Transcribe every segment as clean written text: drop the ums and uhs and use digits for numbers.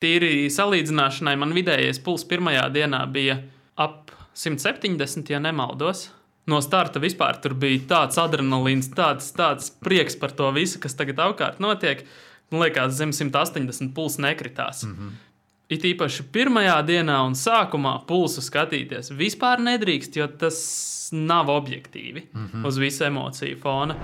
tīri salīdzināšanai man vidējais puls pirmajā dienā bija ap 170, ja nemaldos. No starta vispār tur bija tāds adrenalīns, tāds prieks par to visu, kas tagad apkārt notiek. Man liekas, zem 180 puls nekritās. It īpaši pirmajā dienā un sākumā pulsu skatīties vispār nedrīkst, jo tas nav objektīvi uz visu emociju fona.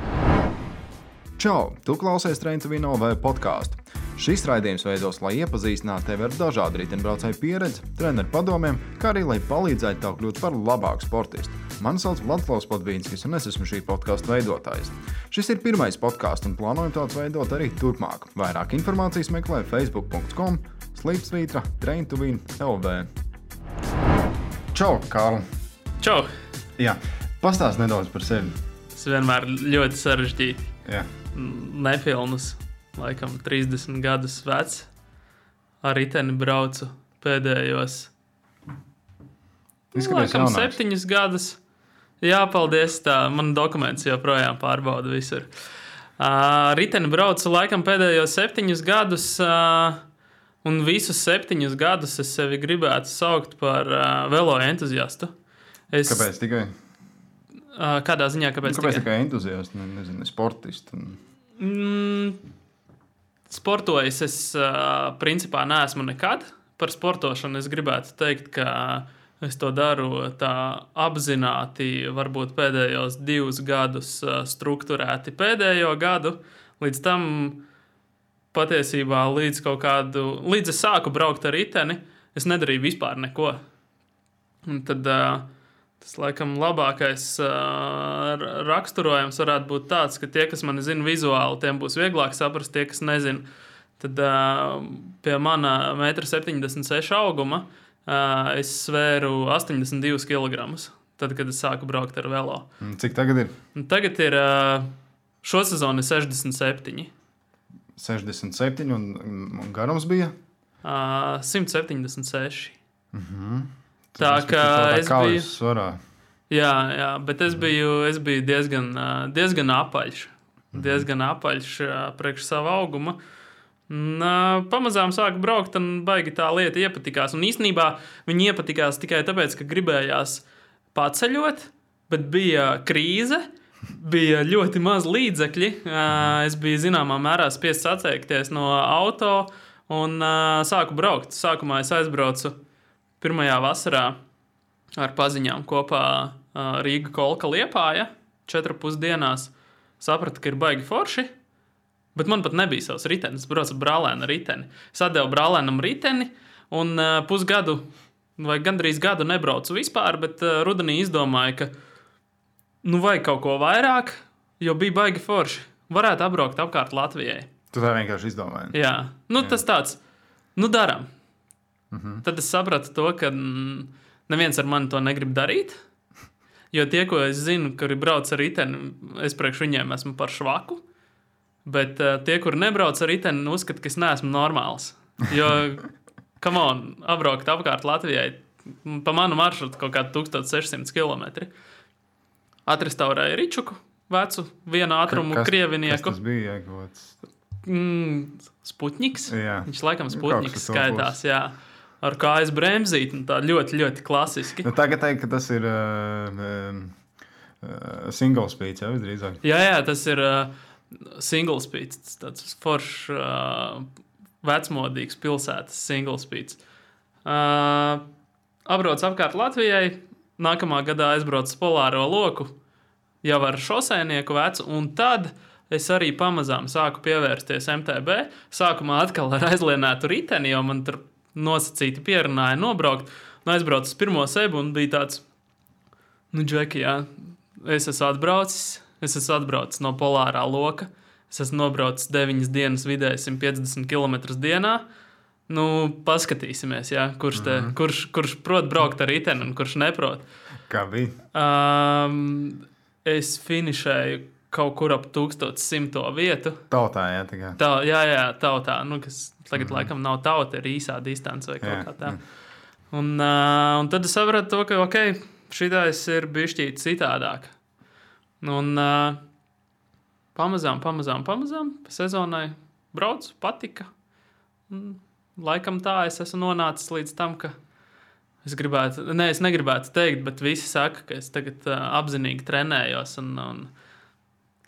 Čau! Tu klausies Train to Win LV podcastu. Šis raidījums veidos, lai iepazīstinātu tevi ar dažādu riteņbraucēju pieredzi, treneru padomiem, kā arī lai palīdzētu tev kļūt par labāku sportistu. Mani sauc Vladislavs Podvīnskis, un es esmu šī podkasta veidotājs. Šis ir pirmais podcasts, un plānojam tāds veidot arī turpmāk. Vairāk informācijas meklē facebook.com/slīpsvītra Train to Win LV. Čau, Kārl! Čau! Jā, pastāst nedaudz par sevi. Tas vienmēr ļoti sarežģīti. Jā. Nepilnus, laikam 30 gadus vecs. Ar riteni braucu pēdējos. Laikam 7 gadus. Jā, paldies, tā man dokuments joprojām pārbauda visur. Riteni braucu laikam pēdējos 7 gadus, un visus 7 gadus es sevi gribētu saukt par velo entuziastu. Kāpēc tikai? Kādā ziņā, kāpēc tikai entuziastu, nezinu, sportistu? Sportojis es principā neesmu nekad. Par sportošanu es gribētu teikt, ka es to daru tā apzināti, varbūt pēdējos 2 gadus strukturēti pēdējo gadu. Līdz tam patiesībā līdz es sāku braukt ar riteni, es nedarīju vispār neko. Un tad tas laikam labākais raksturojums varētu būt tāds, ka tie, kas mani zina vizuāli, tiem būs vieglāk saprast, tie, kas nezina. Tad pie mana 1,76 m auguma es svēru 82 kg, tad, kad es sāku braukt ar velo. Cik tagad ir? Tagad ir šo sezonu 67. 67 un garums bija? 176. Tā kā es biju svarā. Jā, bet es biju diezgan apaļš. Diezgan apaļš priekš savu augumu. Pamazām sāku braukt, un baigi tā lieta iepatikās. Un īstenībā viņi iepatikās tikai tāpēc, ka gribējās paceļot, bet bija krīze, bija ļoti maz līdzekļi. Es biju zināmā mērā spiests atteikties no auto un sāku braukt. Sākumā es aizbraucu pirmajā vasarā ar paziņām kopā Rīga Kolka Liepāja 4,5 dienās. Sapratu, ka ir baigi forši. Bet man pat nebija savs ritenis. Es braucu ar brālēnu riteni. Es atdevu brālēnam riteni un pusgadu vai gandrīz gadu nebraucu vispār, bet rudenī izdomāju, ka vajag kaut ko vairāk, jo bija baigi forši. Varētu apbraukt apkārt Latvijai. Tu tā vienkārši izdomāji? Jā. Tas tāds, daram. Tad es sapratu to, ka neviens ar mani to negrib darīt, jo tie, ko es zinu, kuri brauc ar riteni, es priekš viņiem esmu par švaku. Bet tie, kuri nebrauc ar riteni, uzskata, ka es neesmu normāls. Jo, come on, apbraukt apkārt Latvijai pa manu maršrutu kaut kādu 1600 km. Atrestaurēju Ričuku, vecu, vienu ātrumu krievinieku. Kas tas bija? Sputņiks. Jā. Viņš laikam Sputņiks skaitās, jā. Ar kājas bremzīti, tā ļoti, ļoti klasiski. Tagad teikt, ka tas ir single speed, jau visdrīzāk. Jā, tas ir single speed, tāds foršs, vecmodīgs pilsētas single speed. Apbrauc apkārt Latvijai, nākamā gadā aizbraucu Polāro loku, jau ar šoseinieku vecu, un tad es arī pamazām sāku pievērsties MTB. Sākumā atkal ar aizlienētu riteni, jo man tur nosacīti pierunāja nobraukt, un aizbraucu uz pirmo sebu, un bija tāds, Džeki, jā, es esmu atbraucis no Polārā loka. Es esmu nobraucis 9 dienas vidēji 150 km dienā. Paskatīsimies, jā, kurš prot braukt ar riteni un kurš neprot. Kā bija? Es finišēju kaut kur ap 1100 vietu. Tautā, jā, tikai. Jā, tautā. Kas tagad laikam nav tauta, ir īsā distance vai kaut kā tā. Un tad es sapratu to, ka, šitais ir bišķīt citādāk. Un pamazām pa sezonai braucu, patika. laikam tā es esmu nonācis līdz tam, ka es negribētu teikt, bet visi saka, ka es tagad apzinīgi trenējos, un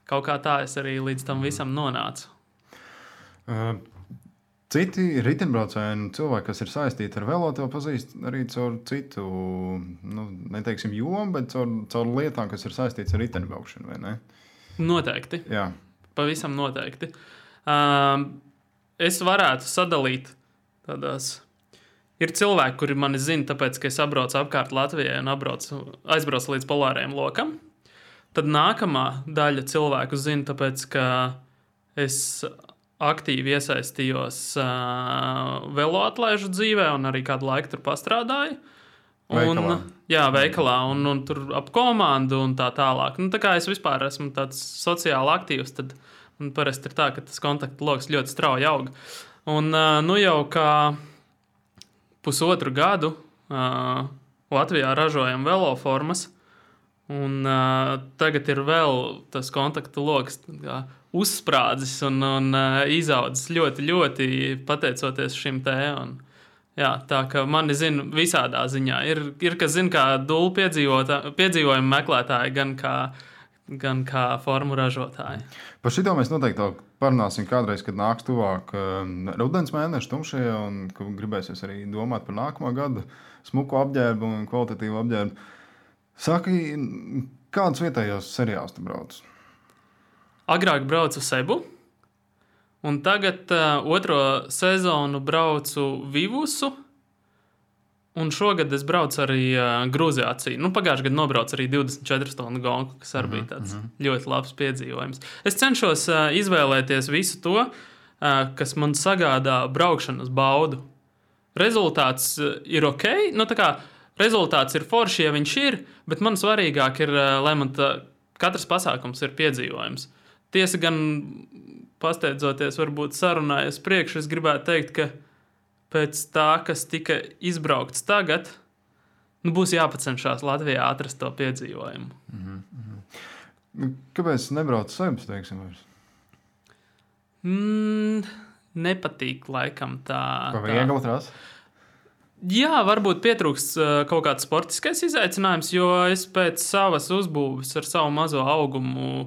kaut kā tā es arī līdz tam visam nonācu. Citi riteņbraucēji un cilvēki, kas ir saistīti ar velo, to pazīst arī caur citu, neteiksim jomu, bet caur lietām, kas ir saistīts ar riteņbraukšanu, vai ne? Noteikti. Jā. Pavisam noteikti. Es varētu sadalīt tādās. Ir cilvēki, kuri mani zina, tāpēc, ka es apbraucu apkārt Latvijai un aizbraucu līdz polārajam lokam. Tad nākamā daļa cilvēku zina, tāpēc, ka es aktīvi iesaistījos veloatlēžu dzīvē un arī kādu laiku tur pastrādāju. Veikalā un tur ap komandu un tā tālāk. Tā kā es vispār esmu tāds sociāli aktīvs, tad parasti ir tā, ka tas kontaktu loks ļoti strauji aug. Un jau kā pusotru gadu Latvijā ražojam veloformas, un tagad ir vēl tas kontaktu loks uzsprādzis un izaudzis ļoti, ļoti pateicoties šim te. Jā, tā kā mani zina visādā ziņā. Ir kas zina kā dulu piedzīvojumu meklētāji, gan kā formu ražotāji. Par šito mēs noteikti parunāsim kādreiz, kad nāks tuvāk rudens mēneši tumšie, un ka gribēsies arī domāt par nākamo gadu smuku apģērbu un kvalitatīvu apģērbu. Saki, kādus vietējos seriālus tu brauc? Agrāk braucu Sebu, un tagad otro sezonu braucu Vivusu, un šogad es braucu arī Grūzijāciju. Pagājušajā gadā nobraucu arī 24 stundu gonku, kas arī bija tāds ļoti labs piedzīvojums. Es cenšos izvēlēties visu to, kas man sagādā braukšanas baudu. Rezultāts ir ok, rezultāts ir forši, ja viņš ir, bet man svarīgāk ir, lai man katrs pasākums ir piedzīvojums. Tiesa gan pasteidzoties, varbūt sarunājas priekš, es gribētu teikt, ka pēc tā, kas tika izbraukts tagad, būs jāpacenšās Latvijā atrast to piedzīvojumu. Kāpēc nebrauc Sebas, teiksim, vairs? Nepatīk laikam tā. Pa viegli trasa? Jā, varbūt pietrūkst kaut kāds sportiskais izaicinājums, jo es pēc savas uzbūves ar savu mazo augumu,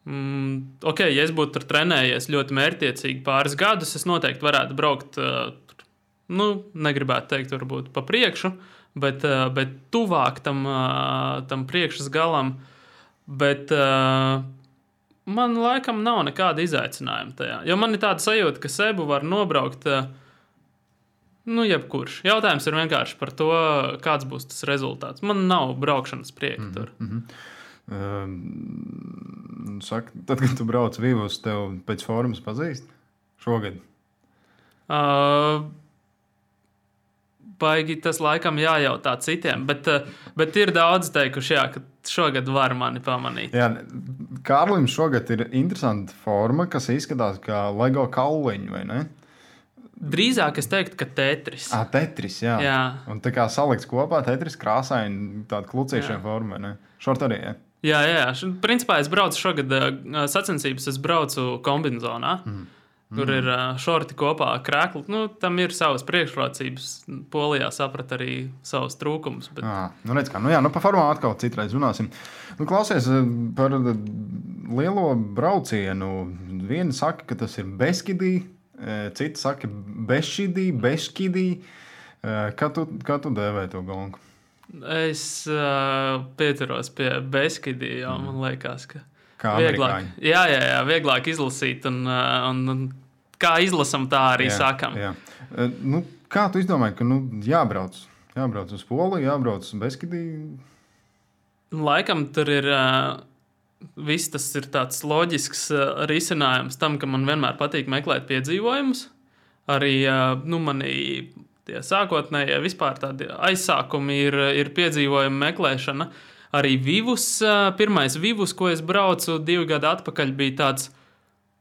ja es būtu tur trenējies ļoti mērķtiecīgi pāris gadus, es noteikti varētu braukt, negribētu teikt varbūt pa priekšu, bet tuvāk tam priekšas galam, bet man laikam nav nekāda izaicinājuma tajā, jo man ir tāda sajūta, ka Sebu var nobraukt jebkurš. Jautājums ir vienkārši par to, kāds būs tas rezultāts. Man nav braukšanas prieka tur. Saka, tad, kad tu brauc Vivus, tev pēc formas pazīst šogad? Baigi tas laikam jājautā citiem, bet ir daudz teikuši, ka šogad var mani pamanīt. Jā, Kārlim šogad ir interesanta forma, kas izskatās kā Lego kauliņi, vai ne? Drīzāk es teiktu, ka Tetris. Tetris, jā. Un tā kā salikts kopā Tetris krāsaini tāda klucīšana forma, ne? Šort arī, jā? Jā. Principā es braucu šogad sacensības, es braucu kombinzonā, kur ir šorti kopā krēkli. Tam ir savas priekšrocības. Polijā saprat arī savus trūkumus. Bet... redz kā. Pa formām atkal citreiz runāsim. Klausies par lielo braucienu. Vieni saka, ka tas ir Beskidī. Citi saka, Beškidī. Kā tu dēvē to gonku? Es pieturos pie Beskidī, jo man liekas, ka vieglāk, vieglāk izlasīt un kā izlasam, tā arī sakam. Jā. Kā tu izdomāji, ka jābrauc uz Poliju, jābrauc uz Beskidī? Laikam tur ir... Viss tas ir tāds loģisks risinājums tam, ka man vienmēr patīk meklēt piedzīvojumus. Arī manī tie sākotnējie vispār tādi aizsākumi ir piedzīvojumu meklēšana. Arī pirmais Vivus, ko es braucu 2 gadu atpakaļ, bija tāds,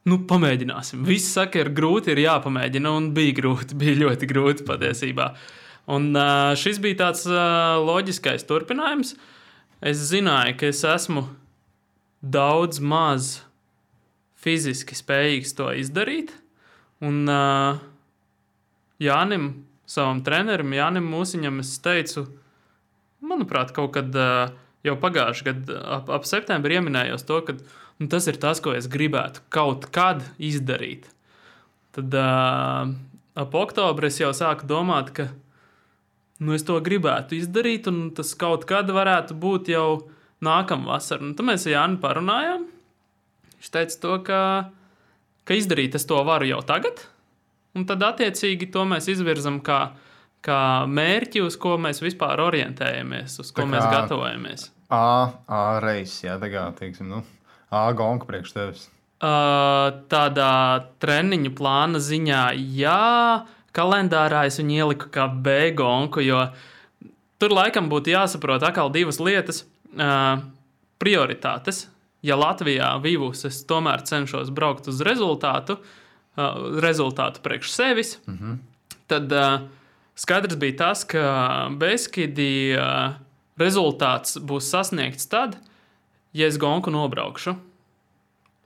pamēģināsim. Visi saka, ir grūti, ir jāpamēģina, un bija grūti, bija ļoti grūti patiesībā. Un šis bija tāds loģiskais turpinājums. Es zināju, ka es esmu daudz maz fiziski spējīgs to izdarīt. Un, Jānim, savam trenerim, Jānim Mūsiņam, es teicu, manuprāt, kaut kad jau pagājuši gadu ap septembri ieminējos to, ka tas ir tas, ko es gribētu kaut kad izdarīt. Tad ap oktobri es jau sāku domāt, ka es to gribētu izdarīt, un tas kaut kad varētu būt jau nākamā vasara. Tad mēs ar Jāni parunājām. Viņš teica to, ka izdarīt es to varu jau tagad, un tad attiecīgi to mēs izvirzam kā mērķi, uz ko mēs vispār orientējamies, uz ko mēs gatavojamies. A reizes, jā, tagad, teiksim, A gonka priekš tevis. Tādā treniņu plāna ziņā, jā, kalendārā es viņu ieliku kā B gonku, jo tur laikam būtu jāsaprot atkal divas lietas. Prioritātes. Ja Latvijā Vivus es tomēr cenšos braukt uz rezultātu priekš sevis, tad skaidrs bija tas, ka Beskidi rezultāts būs sasniegts tad, ja es gonku nobraukšu.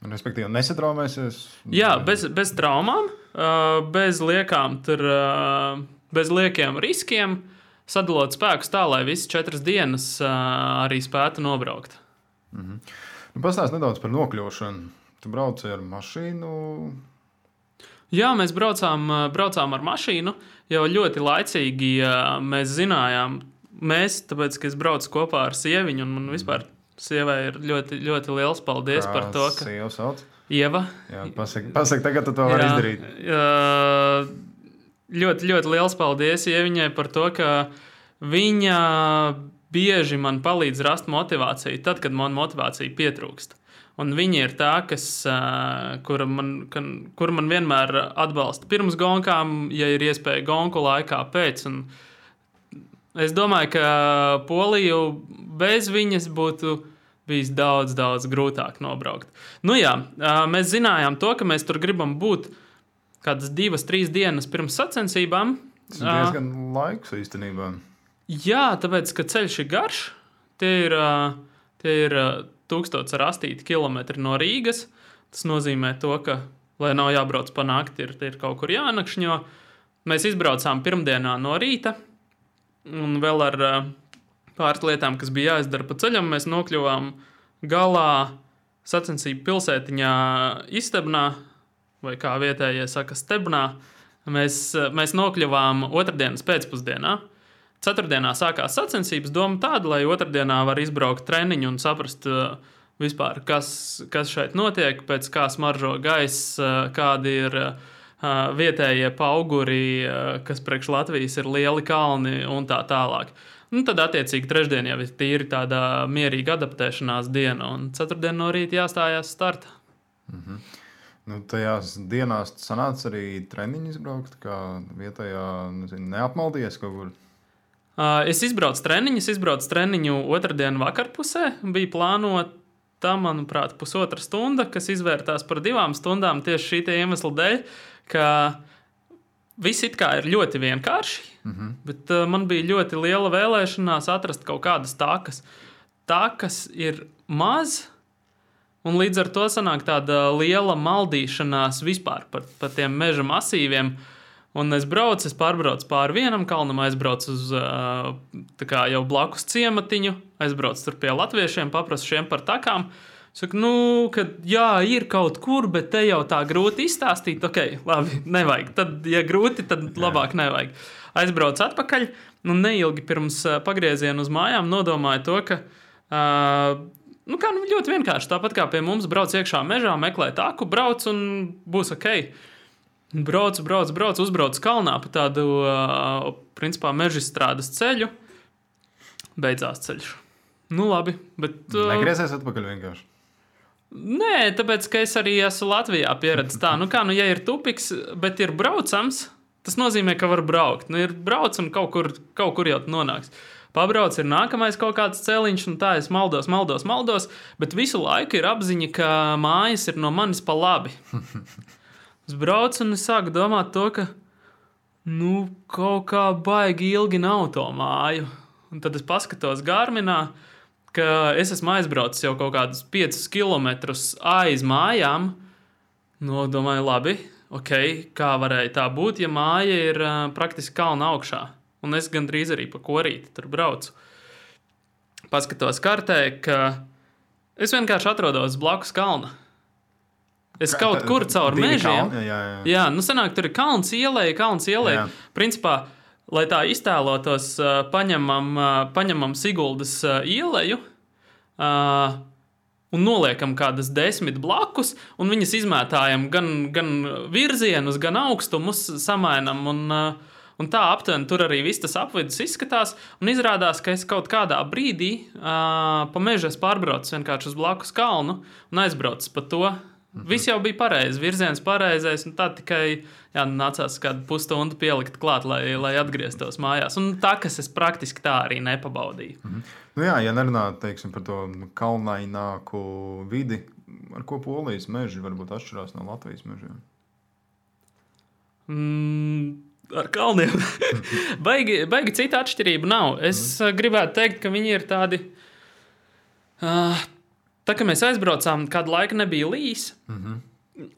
Respektīvi, nesatraumēsies? Jā, bez traumām, bez liekiem riskiem, sadalot spēkus tā, lai visas 4 dienas arī spētu nobraukt. Pastāst nedaudz par nokļūšanu. Tu brauci ar mašīnu? Jā, mēs braucām ar mašīnu. Jau ļoti laicīgi mēs zinājām, tāpēc, ka es braucu kopā ar sieviņu, un man vispār sievai ir ļoti, ļoti liels paldies par to, ka... Sieva sauc? Ieva. Jā, pasaka, tagad tu to vari izdarīt. Ļoti, ļoti liels paldies Ieviņai par to, ka viņa bieži man palīdz rast motivāciju tad, kad man motivācija pietrūkst. Un viņa ir tā, kur man vienmēr atbalsta pirms gonkām, ja ir iespēja gonku laikā pēc. Un es domāju, ka Poliju bez viņas būtu bijis daudz, daudz grūtāk nobraukt. Mēs zinājām to, ka mēs tur gribam būt kādas 2-3 dienas pirms sacensībām. Tas ir diezgan laiks īstenībā. Jā, tāpēc, ka ceļš ir garš. Tie ir 1008 kilometri no Rīgas. Tas nozīmē to, ka, lai nav jābrauc pa nakti, ir kaut kur jānakšņo. Mēs izbraucām pirmdienā no rīta. Un vēl ar pāris lietām, kas bija jāizdara pa ceļam, mēs nokļuvām galā sacensību pilsētiņā Istebnā, vai kā vietējie saka, Stebnā. Mēs nokļuvām otrdienas pēcpusdienā. Ceturtdienā sākās sacensības, doma tāda, lai otrdienā var izbraukt treniņu un saprast vispār, kas šeit notiek, pēc kā smaržo gaiss, kādi ir vietējie pauguri, kas priekš Latvijas ir lieli kalni un tā tālāk. Tad, attiecīgi, trešdien jau ir tīri tāda mierīga adaptēšanās diena, un ceturtdien no rīta jāstājās starta. Tajās dienās sanāca arī treniņu izbraukt, kā vietējā, neapmaldies kaut kur? Es izbraucu treniņu otrdienu vakarpusē. Bija plānota, manuprāt, 1,5 stunda, kas izvērtās par 2 stundām tieši šī iemesla dēļ, ka viss it kā ir ļoti vienkārši, bet man bija ļoti liela vēlēšanās atrast kaut kādas takas. Takas ir maz, un līdz ar to sanāk tāda liela maldīšanās vispār par tiem meža masīviem. Un es pārbraucu pāri vienam kalnam, aizbraucu uz jau blakus ciematiņu, aizbraucu tur pie latviešiem, paprasu šiem par takām. Saku, ka jā, ir kaut kur, bet te jau tā grūti izstāstīt. Ok, labi, nevajag. Tad, ja grūti, tad labāk nevajag. Aizbraucu atpakaļ, un neilgi pirms pagrieziena uz mājām nodomāju to, ka ļoti vienkārši. Tāpat kā pie mums brauc iekšā mežā, meklē taku, brauc un būs ok. Braucu, uzbraucu kalnā pa tādu, principā, mežstrādes ceļu. Beidzās ceļš. Labi, bet... Negriezies atpakaļ vienkārši? Nē, tāpēc, ka es arī esmu Latvijā pieredzis tā. Ja ir tupiks, bet ir braucams, tas nozīmē, ka var braukt. Ir brauc un kaut kur jau nonāks. Pabrauc, ir nākamais kaut kāds celiņš, un tā es maldos, bet visu laiku ir apziņa, ka mājas ir no manis pa labi. Es braucu un es sāku domāt to, ka kaut kā baigi ilgi nav to māju. Un tad es paskatos Garminā, ka es esmu aizbraucis jau kaut kādus 5 kilometrus aiz mājām. Domāju, labi, kā varēja tā būt, ja māja ir praktiski kalna augšā. Un es gandrīz arī pa korīti tur braucu. Paskatos kartē, ka es vienkārši atrodos blakus kalna. Es kaut kur caur mežiem. Jā, sanāk, tur ir kalns ielēja. Principā, lai tā iztēlotos, paņemam Siguldas ieleju un noliekam kādas 10 blakus, un viņas izmētājam gan virzienus, gan augstumus samainam, un tā aptuveni tur arī viss tas apvidus izskatās, un izrādās, ka es kaut kādā brīdī pa mežu pārbraucu vienkārši uz blakus kalnu un aizbraucu pa to. Viss jau bija pareizi, virziens pareizais, un tā tikai nācās kādu pusstundu pielikt klāt, lai atgrieztos mājās. Un tā, kas es praktiski tā arī nepabaudīju. Nu jā, ja nerunā, teiksim, par to kalnaināku vidi, ar ko Polijas meži varbūt atšķirās no Latvijas mežiem? Ar kalniem. baigi cita atšķirība nav. Es gribētu teikt, ka viņi ir tādi... Tā kā mēs aizbraucām, kādu laiku nebija līs,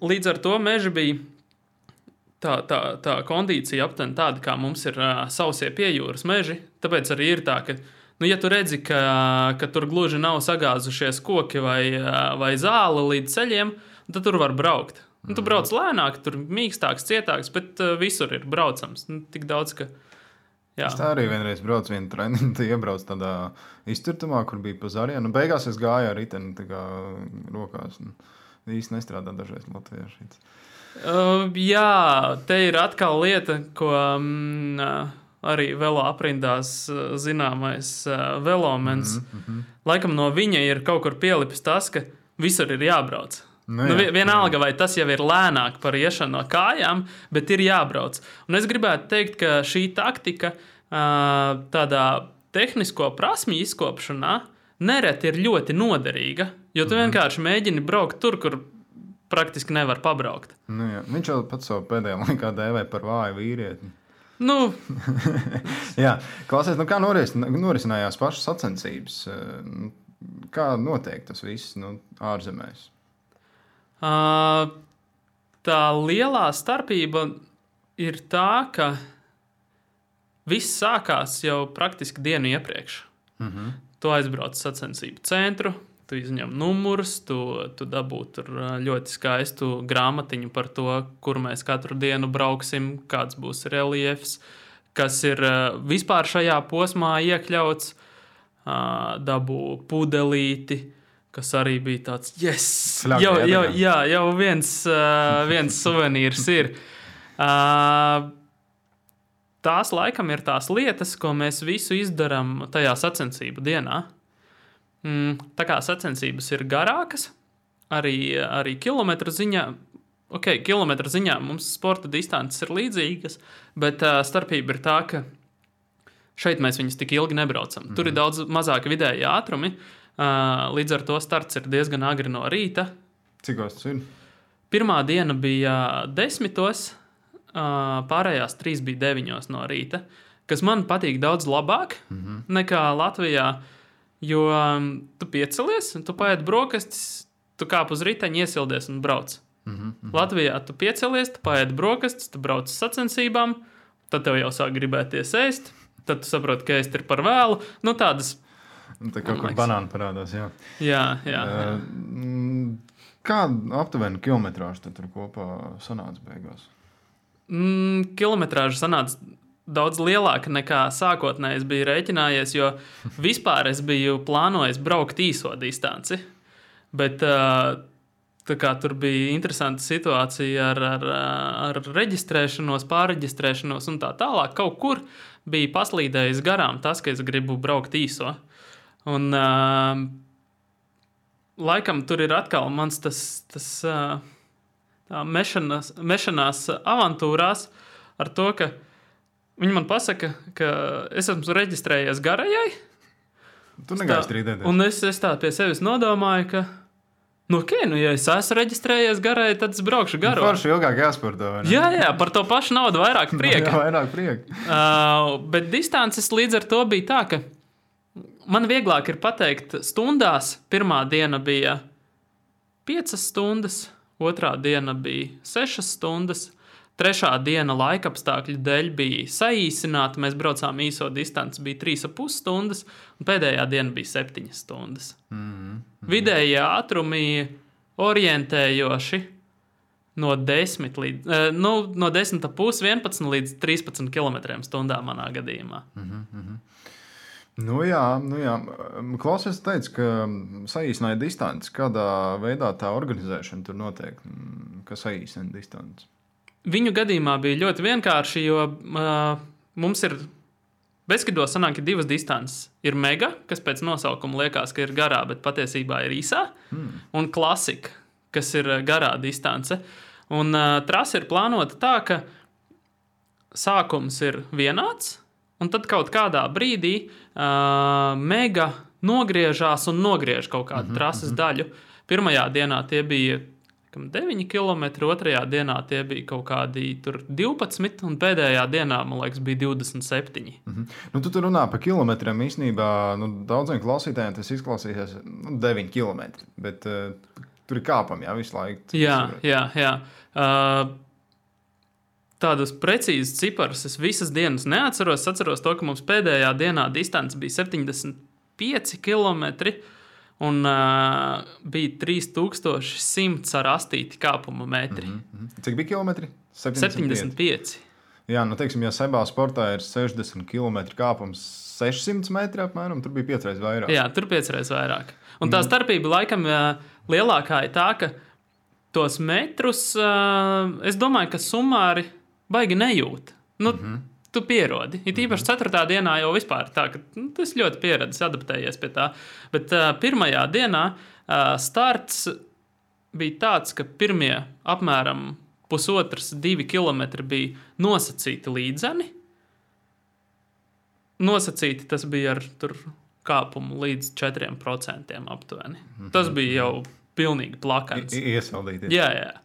līdz ar to meži bija tā kondīcija aptuveni tāda, kā mums ir sausie piejūras meži. Tāpēc arī ir tā, ka, ja tu redzi, ka tur gluži nav sagāzušies koki vai zāle līdz ceļiem, tad tur var braukt. Tu brauc lēnāk, tur mīkstāks, cietāks, bet visur ir braucams. Tik daudz, ka... Jā. Es tā arī vienreiz braucu vienu treniņu, iebraucu tādā izcirtumā, kur bija pa Zarienu. Beigās es gāju ar riteni rokās. Īsti nestrādā dažreiz latvieši. Jā, te ir atkal lieta, ko arī velo aprindās zināmais velomens. Laikam no viņa ir kaut kur pielipis tas, ka visur ir jābrauc. Vienalga, vai tas jau ir lēnāk par iešanu no kājām, bet ir jābrauc. Un es gribētu teikt, ka šī taktika tādā tehnisko prasmju izkopšanā nereti ir ļoti noderīga, jo tu vienkārši mēģini braukt tur, kur praktiski nevar pabraukt. Viņš jau pats savu pēdējā laikā dēvē par vāju vīrieti. Jā, klausies, kā norisinājās pašas sacensības? Kā notiek tas viss ārzemēs? Tā lielā starpība ir tā, ka viss sākās jau praktiski dienu iepriekš. Tu aizbrauc sacensību centru, tu izņem numurus, tu dabū tur ļoti skaistu grāmatiņu par to, kur mēs katru dienu brauksim, kāds būs reliefs, kas ir vispār šajā posmā iekļauts, dabū pudelīti, kas arī bija tāds, jau viens suvenīrs ir. Tās laikam ir tās lietas, ko mēs visu izdarām tajā sacensību dienā. Tā kā sacensības ir garākas, arī kilometru ziņā, kilometru ziņā mums sporta distances ir līdzīgas, bet starpība ir tā, ka šeit mēs viņus tik ilgi nebraucam. Tur ir daudz mazāki vidēji ātrumi, līdz ar to starts ir diezgan agri no rīta. Cikos tas ir? Pirmā diena bija 10, pārējās 3 bija 9 no rīta, kas man patīk daudz labāk nekā Latvijā, jo tu piecelies, tu paēd brokastis, tu kāp uz riteņa, iesildies un brauc. Latvijā tu piecelies, tu paēd brokastis, tu brauc uz sacensībām, tad tev jau sāk gribēties ēst, tad tu saproti, ka ēst ir par vēlu. Tādas... Tā kaut kur banāni parādās, jā. Jā. Kā aptuveni kilometrāžu tad tur kopā sanāca beigās? Kilometrāža sanāca daudz lielāka nekā sākotnēji es biju rēķinājies, jo vispār es biju plānojis braukt īso distanci. Bet tā kā tur bija interesanta situācija ar reģistrēšanos, pārreģistrēšanos un tā tālāk, kaut kur bija paslīdējis garām tas, ka es gribu braukt īso. Un laikam tur ir atkal mans tas mešanās avantūrās ar to, ka viņi man pasaka, ka es esmu reģistrējies garajai. Tu negāji strīdēties. Un es tā pie sevis nodomāju, ka ja es esmu reģistrējies garai, tad es braukšu garo. Forši ilgāk jāsporto, vai ne? Jā, par to pašu naudu vairāk prieka. Vairāk prieka. Bet distances līdz ar to bija tā, ka man vieglāk ir pateikt stundās. Pirmā diena bija 5 stundas, otrā diena bija 6 stundas, trešā diena laikapstākļu dēļ bija saīsināta. Mēs braucām īso distanci, bija 3,5 stundas, un pēdējā diena bija 7 stundas. Vidējie ātrumi orientējoši no 10,5, 11 līdz 13 km/h manā gadījumā. Nu jā. Klausies, teica, ka saīsināja distanci. Kādā veidā tā organizēšana tur notiek? Kas saīsina distanci? Viņu gadījumā bija ļoti vienkārši, jo mums ir Beskido sanāk, ka 2 distances. Ir mega, kas pēc nosaukuma liekas, ka ir garā, bet patiesībā ir īsā, un klasika, kas ir garā distance. Un trase ir plānota tā, ka sākums ir vienāds, un tad kaut kādā brīdī mega nogriežās un nogriež kaut kādu trases daļu. Pirmajā dienā tie bija 9 km, otrajā dienā tie bija kaut kādi 12, un pēdējā dienā, man liekas, bija 27. Nu, tu runā par kilometriem. Īstenībā daudziem klausītājiem tas izklausīsies 9 km, bet tur ir kāpami, visu laiku. Jā. Tādus precīzus ciparus es visas dienas neatceros. Es atceros to, ka mums pēdējā dienā distance bija 75 km, un bija 3100 ar astīti kāpuma metri. Cik bija kilometri? 75. Jā, teiksim, ja Sebā sportā ir 60 km kāpums 600 metri apmēram, tur bija 5 reizes vairāk. Jā, tur 5 reizes vairāk. Un tā starpība laikam lielākā ir tā, ka tos metrus, es domāju, ka sumāri baigi nejūt. Tu pierodi. Ir īpaši 4. dienā jau vispār tā, ka tas ļoti pieredzis, adaptējies pie tā. Bet pirmajā dienā starts bija tāds, ka pirmie apmēram 1,5–2 km bija nosacīti līdzeni. Nosacīti tas bija ar kāpumu līdz 4% aptuveni. Tas bija jau pilnīgi plakans. Iesaldīties. Jā.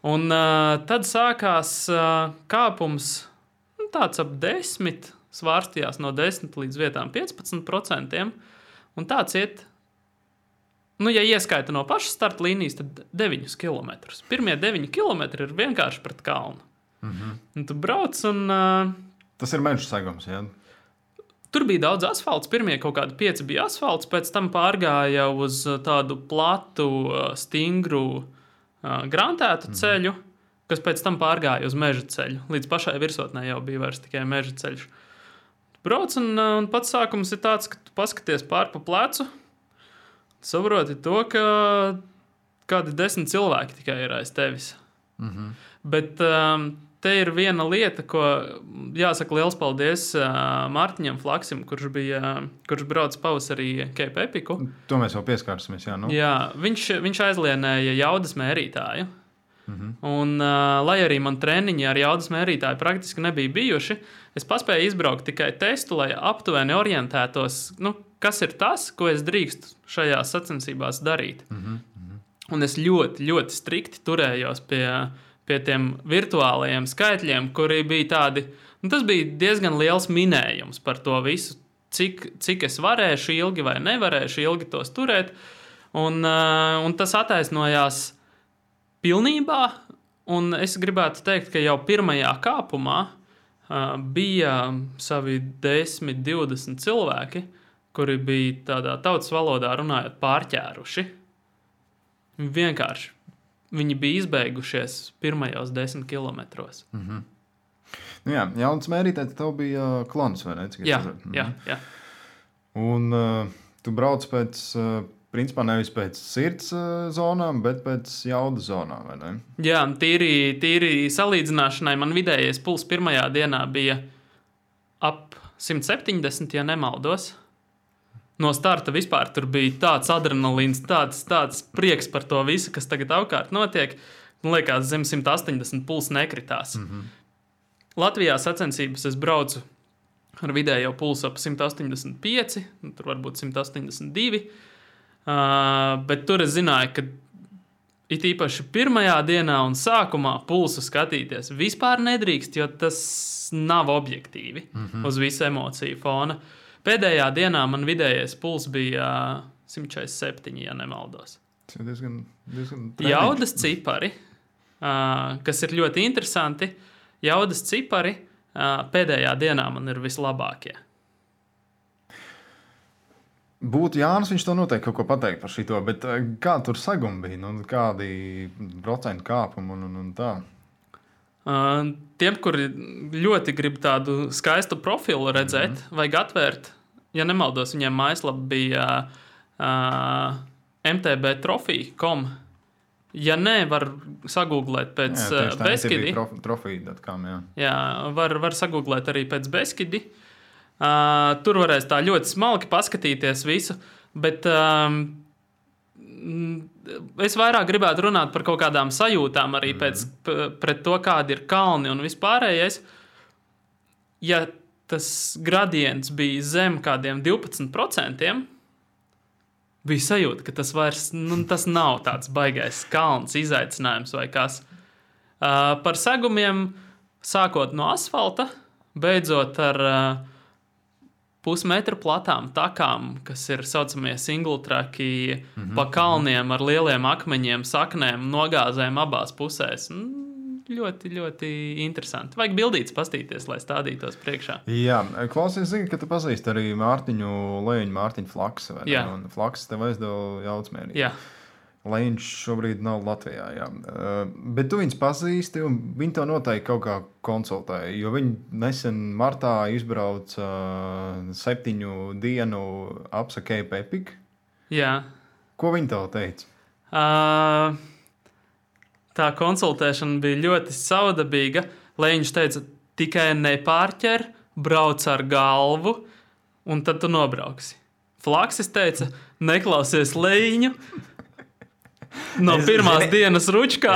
Un tad sākās kāpums tāds ap 10, svārstījās no 10 līdz vietām 15%, un tāds iet, ja ieskaita no pašas starta līnijas, tad 9 km. Pirmie 9 km ir vienkārši pret kalnu. Un tu brauc un... Tas ir meža segums, jā? Tur bija daudz asfalts, pirmie kaut kādi 5 bija asfalts, pēc tam pārgāja uz tādu platu, stingru, grantētu ceļu, kas pēc tam pārgāja uz meža ceļu. Līdz pašai virsotnē jau bija vairs tikai meža ceļš. Brauc un pats sākums ir tāds, ka tu paskaties pār pa plecu, saproti to, ka kādi 10 cilvēki tikai ir aiz tevis. Bet te ir viena lieta, ko jāsaka liels paldies Mārtiņam Flaksim, kurš brauc pavasarī Cape Epiku. To mēs jau pieskārsimies, jā. Jā, viņš aizlienēja jaudas mērītāju. Un, lai arī man treniņi ar jaudas mērītāju praktiski nebija bijuši, es paspēju izbraukt tikai testu, lai aptuveni orientētos, kas ir tas, ko es drīkstu šajās sacensībās darīt. Un es ļoti, ļoti strikti turējos pie tiem virtuālajiem skaitļiem, kuri bija tādi, tas bija diezgan liels minējums par to visu, cik es varēšu ilgi vai nevarēšu ilgi tos turēt, un tas attaisnojās pilnībā, un es gribētu teikt, ka jau pirmajā kāpumā bija savi 10–20 cilvēki, kuri bija tādā tautas valodā runājot pārķēruši. Vienkārši. Viņi bija izbeigušies pirmajos 10 kilometros. Jā, jaunas mērītājs tev bija klons, vai ne? Jā. Un tu brauc pēc... Principā nevis pēc sirds zonām, bet pēc jaudas zonām, vai ne? Jā, tīri salīdzināšanai man vidējais puls pirmajā dienā bija ap 170, ja nemaldos. No starta vispār tur bija tāds adrenalīns, tāds prieks par to visu, kas tagad apkārt notiek. Man liekas, zem 180 puls nekritās. Latvijā sacensības es braucu ar vidējo pulsu ap 185, tur varbūt 182. Bet tur es zināju, ka it īpaši pirmajā dienā un sākumā pulsu skatīties vispār nedrīkst, jo tas nav objektīvi uz visu emociju fona. Pēdējā dienā man vidējais puls bija 147, ja nemaldos. diezgan Jaudas cipari, kas ir ļoti interesanti, jaudas cipari pēdējā dienā man ir vislabākie. Būtu Jānis, viņš to noteikti kaut ko pateikt par šito, bet kā tur sagumi bija? Nu, kādi procentu kāpumi un tā? Tiem, kuri ļoti grib tādu skaistu profilu redzēt, vajag atvērt, ja nemaldos, viņiem mājaslapa bija mtbtrofija.com. Ja nē, var sagūglēt pēc Beskidi. Trofija.com, jā. Jā, var sagūglēt arī pēc Beskidi. Tur varēs tā ļoti smalki paskatīties visu, bet es vairāk gribētu runāt par kaut kādām sajūtām arī pret to, kādi ir kalni un vispārējais. Ja tas gradients bija zem kādiem 12%, bija sajūta, ka tas vairs tas nav tāds baigais kalns, izaicinājums vai kas. Par segumiem, sākot no asfalta, beidzot ar pusmetra platām takām, kas ir saucamie single tracki, pa kalniem ar lieliem akmeņiem, saknēm, nogāzēm abās pusēs. Ļoti, ļoti interesanti. Vajag bildītes pastīties, lai stādītos priekšā. Jā, klausies, zini, ka tu pazīsti arī Mārtiņu Leņu, Mārtiņu Flaksu. Jā. Un Flaks tev aizdeva jaucmērī. Jā. Leņš šobrīd nav Latvijā, jā. Bet tu viņus pazīsti, un viņi to noteikti kaut kā konsultēja, jo viņi nesen martā izbrauca 7 dienu apsa Cape Epic. Jā. Ko viņi tev teica? Tā konsultēšana bija ļoti saudabīga. Leņš teica, tikai nepārķer, brauc ar galvu, un tad tu nobrauksi. Flaksis teica, neklausies Leņu, no pirmās dienas ručkā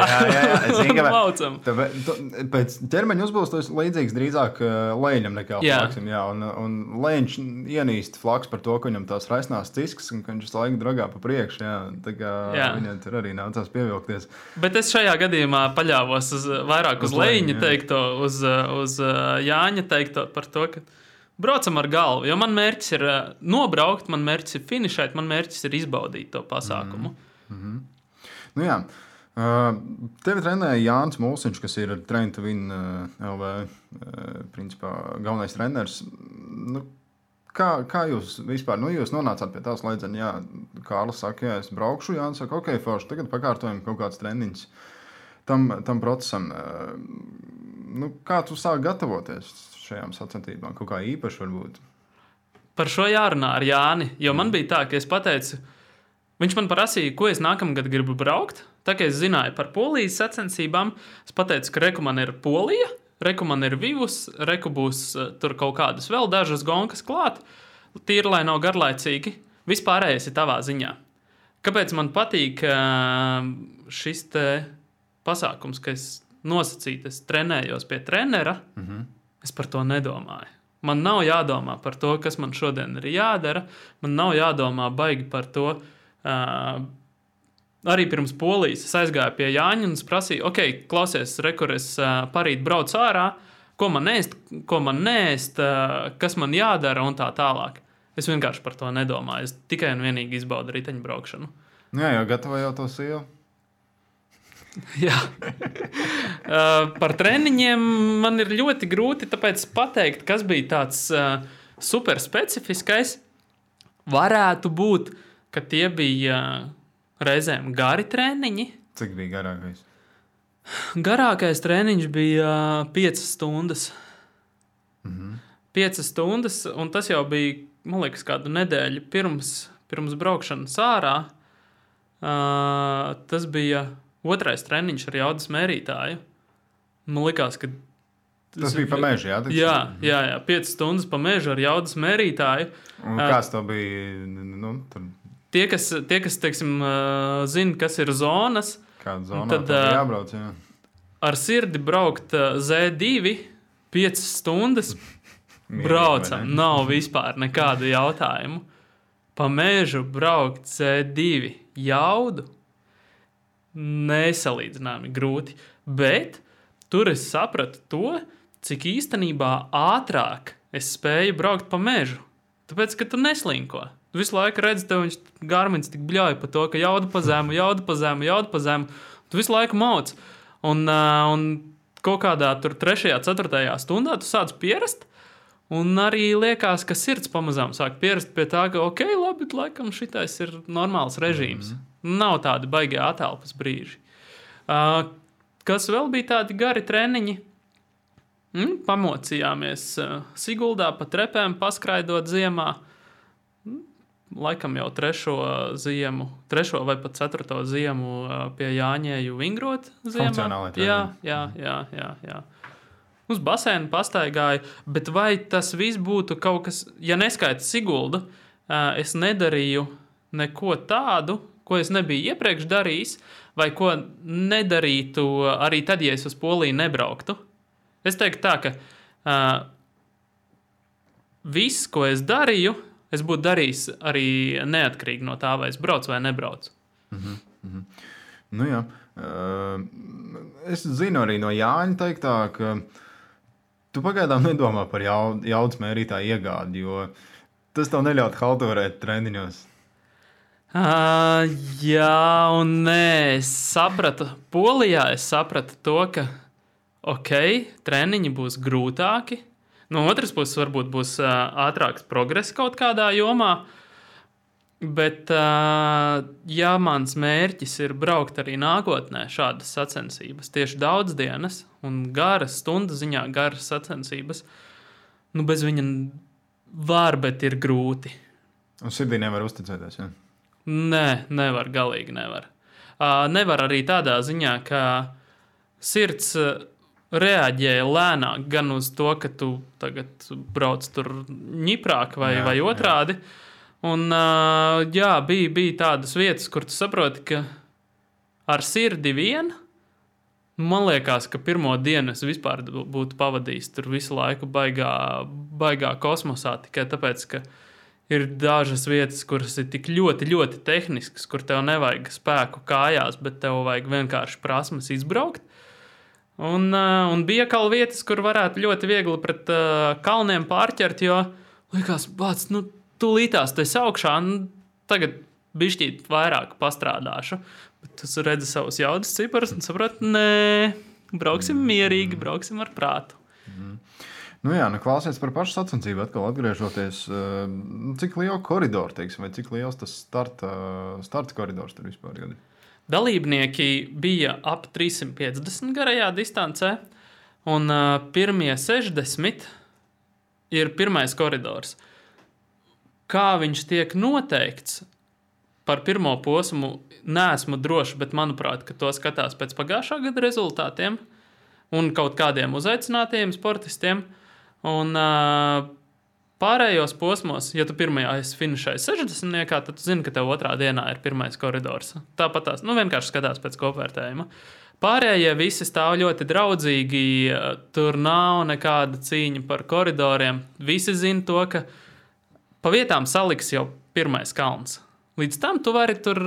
laucam. Pēc ķermeņa uzbūves tas līdzīgs drīzāk Leņam nekā Flaksim. Jā, un Leņš ienīst Flaks par to, ka viņam tās raisnās ciskas un ka viņš laiku dragā pa priekšu. Tā kā viņam tur arī nācās pievilkties. Bet es šajā gadījumā paļāvos vairāk uz Leņa teikto, uz Jāņa teikto par to, ka braucam ar galvu. Jo man mērķis ir nobraukt, man mērķis ir finišēt, man mērķis ir izbaudīt to pasākumu. Nu jā, tevi trenēja Jānis Mulsiņš, kas ir Train to Win LV principā galvenais treneris. Nu, kā jūs vispār, jūs nonācāt pie tās slēdzena, jā, Kārlis saka, jā, es braukšu, Jānis saka, ok, forši, tagad pakārtojam kaut kāds treniņš tam procesam. Nu, kā tu sāk gatavoties šajām sacensībām? Kaut kā īpaši varbūt? Par šo jārunā ar Jāni, jo man bija tā, ka es pateicu, viņš man prasīja, ko es nākamgad gribu braukt. Tā kā es zināju par Polijas sacensībām, es pateicu, ka reku man ir Polija, reku man ir Vivus, reku būs tur kaut kādas vēl dažas gonkas klāt, tīri, lai nav garlaicīgi. Vispārējais ir tavā ziņā. Kāpēc man patīk šis te pasākums, ka es nosacītu, es trenējos pie trenera, es par to nedomāju. Man nav jādomā par to, kas man šodien ir jādara, man nav jādomā baigi par to. Arī pirms Polijas es aizgāju pie Jāņa un es prasīju, ok, klausies, rekur, es parīt braucu ārā, ko man neēst, kas man jādara un tā tālāk. Es vienkārši par to nedomāju, es tikai un vienīgi izbaudu riteņbraukšanu. Jā, jau gatavoju jau to sievu. Jā. Par treniņiem man ir ļoti grūti tāpēc pateikt, kas bija tāds super specifiskais. Varētu būt, ka tie bija reizēm gari treniņi. Cik bija garākais? Garākais treniņš bija 5 stundas. 5 stundas, un tas jau bija, man liekas, kādu nedēļu pirms braukšanas ārā. Tas bija otrais treniņš ar jaudas mērītāju. Man likās, ka tas bija pa mežu, jā? Jā, 5 stundas pa mežu ar jaudas mērītāju. Un kāds to bija? Tur... Tie, kas teiksim, zina, kas ir zonas, kāda zonā tad jābrauc, jā. Ar sirdi braukt Z2 5 stundas braucam, nav vispār nekādu jautājumu. Pa mežu braukt Z2 jaudu nesalīdzināmi grūti, bet tur es sapratu to, cik īstenībā ātrāk es spēju braukt pa mežu, tāpēc, ka tu neslinko. visu laiku redzi, tev viņš Garmins tik bļauj par to, ka jauda pa zemu. Tu visu laiku mauc. Un kaut kādā tur 3., 4. stundā tu sāc pierast. Un arī liekas, ka sirds pamazām sāk pierast pie tā, ka ok, labi, laikam šitais ir normāls režīms. Nav tādi baigie atelpas brīži. Kas vēl bija tādi gari treniņi? Pamocījāmies Siguldā pa trepēm, paskraidot ziemā. Laikam jau 3. vai pat 4. ziemu pie Jāņēju vingrot ziemā. Funkcionāli treniņi. Jā. Uz basēnu pastaigāju, bet vai tas viss būtu kaut kas, ja neskaita Siguldu, es nedarīju neko tādu, ko es nebiju iepriekš darījis, vai ko nedarītu arī tad, ja es uz Poliju nebrauktu. Es teiktu tā, ka viss, ko es darīju, es būtu darījis arī neatkarīgi no tā, vai es braucu vai nebraucu. Nu jā. Es zinu arī no Jāņa teiktā, ka tu pagaidām nedomā par jaudas mērītāju iegādi, jo tas tev neļaut halturēt treniņos. Jā un nē, es sapratu. Polijā es sapratu to, ka ok, treniņi būs grūtāki. No otras puses varbūt būs ātrāks progress kaut kādā jomā. Bet, ja mans mērķis ir braukt arī nākotnē šādas sacensības, tieši daudz dienas un garas, stundu ziņā garas sacensības, bez viņa var, bet ir grūti. Un sirdī nevar uzticēties, ja? Nē, nevar, galīgi nevar. Nevar arī tādā ziņā, ka sirds reaģēja lēnāk gan uz to, ka tu tagad brauc tur ņiprāk vai otrādi. Jā. Un, jā, bija tādas vietas, kur tu saproti, ka ar sirdi vien, man liekas, ka pirmo dienu es vispār būtu pavadījis tur visu laiku baigā kosmosā, tikai tāpēc, ka ir dažas vietas, kuras ir tik ļoti, ļoti tehniskas, kur tev nevajag spēku kājās, bet tev vajag vienkārši prasmes izbraukt. Un bija kaut vietas, kur varētu ļoti viegli pret kalniem pārķert, jo liekas, bāc, tūlītās tu esi augšā, tagad bišķīt vairāk pastrādāšu. Bet tu redzi savus jaudas ciparus un saproti, nē, brauksim mierīgi, brauksim ar prātu. Nu jā, klausies par pašu sacensību, atkal atgriežoties, cik liela koridora, teiksim, vai cik liels tas starta koridors tur vispār ir? Dalībnieki bija ap 350 garajā distancē, un pirmie 60 ir pirmais koridors. Kā viņš tiek noteikts par pirmo posmu, neesmu droši, bet manuprāt, ka to skatās pēc pagājušā gada rezultātiem un kaut kādiem uzaicinātajiem sportistiem. Un pārējos posmos, ja tu pirmajā esi finišējis 60, tad tu zini, ka tev otrā dienā ir pirmais koridors. Tāpat tās, vienkārši skatās pēc kopvērtējuma. Pārējie visi stāv ļoti draudzīgi, tur nav nekāda cīņa par koridoriem. Visi zina to, ka pa vietām saliks jau pirmais kalns. Līdz tam tu vari tur,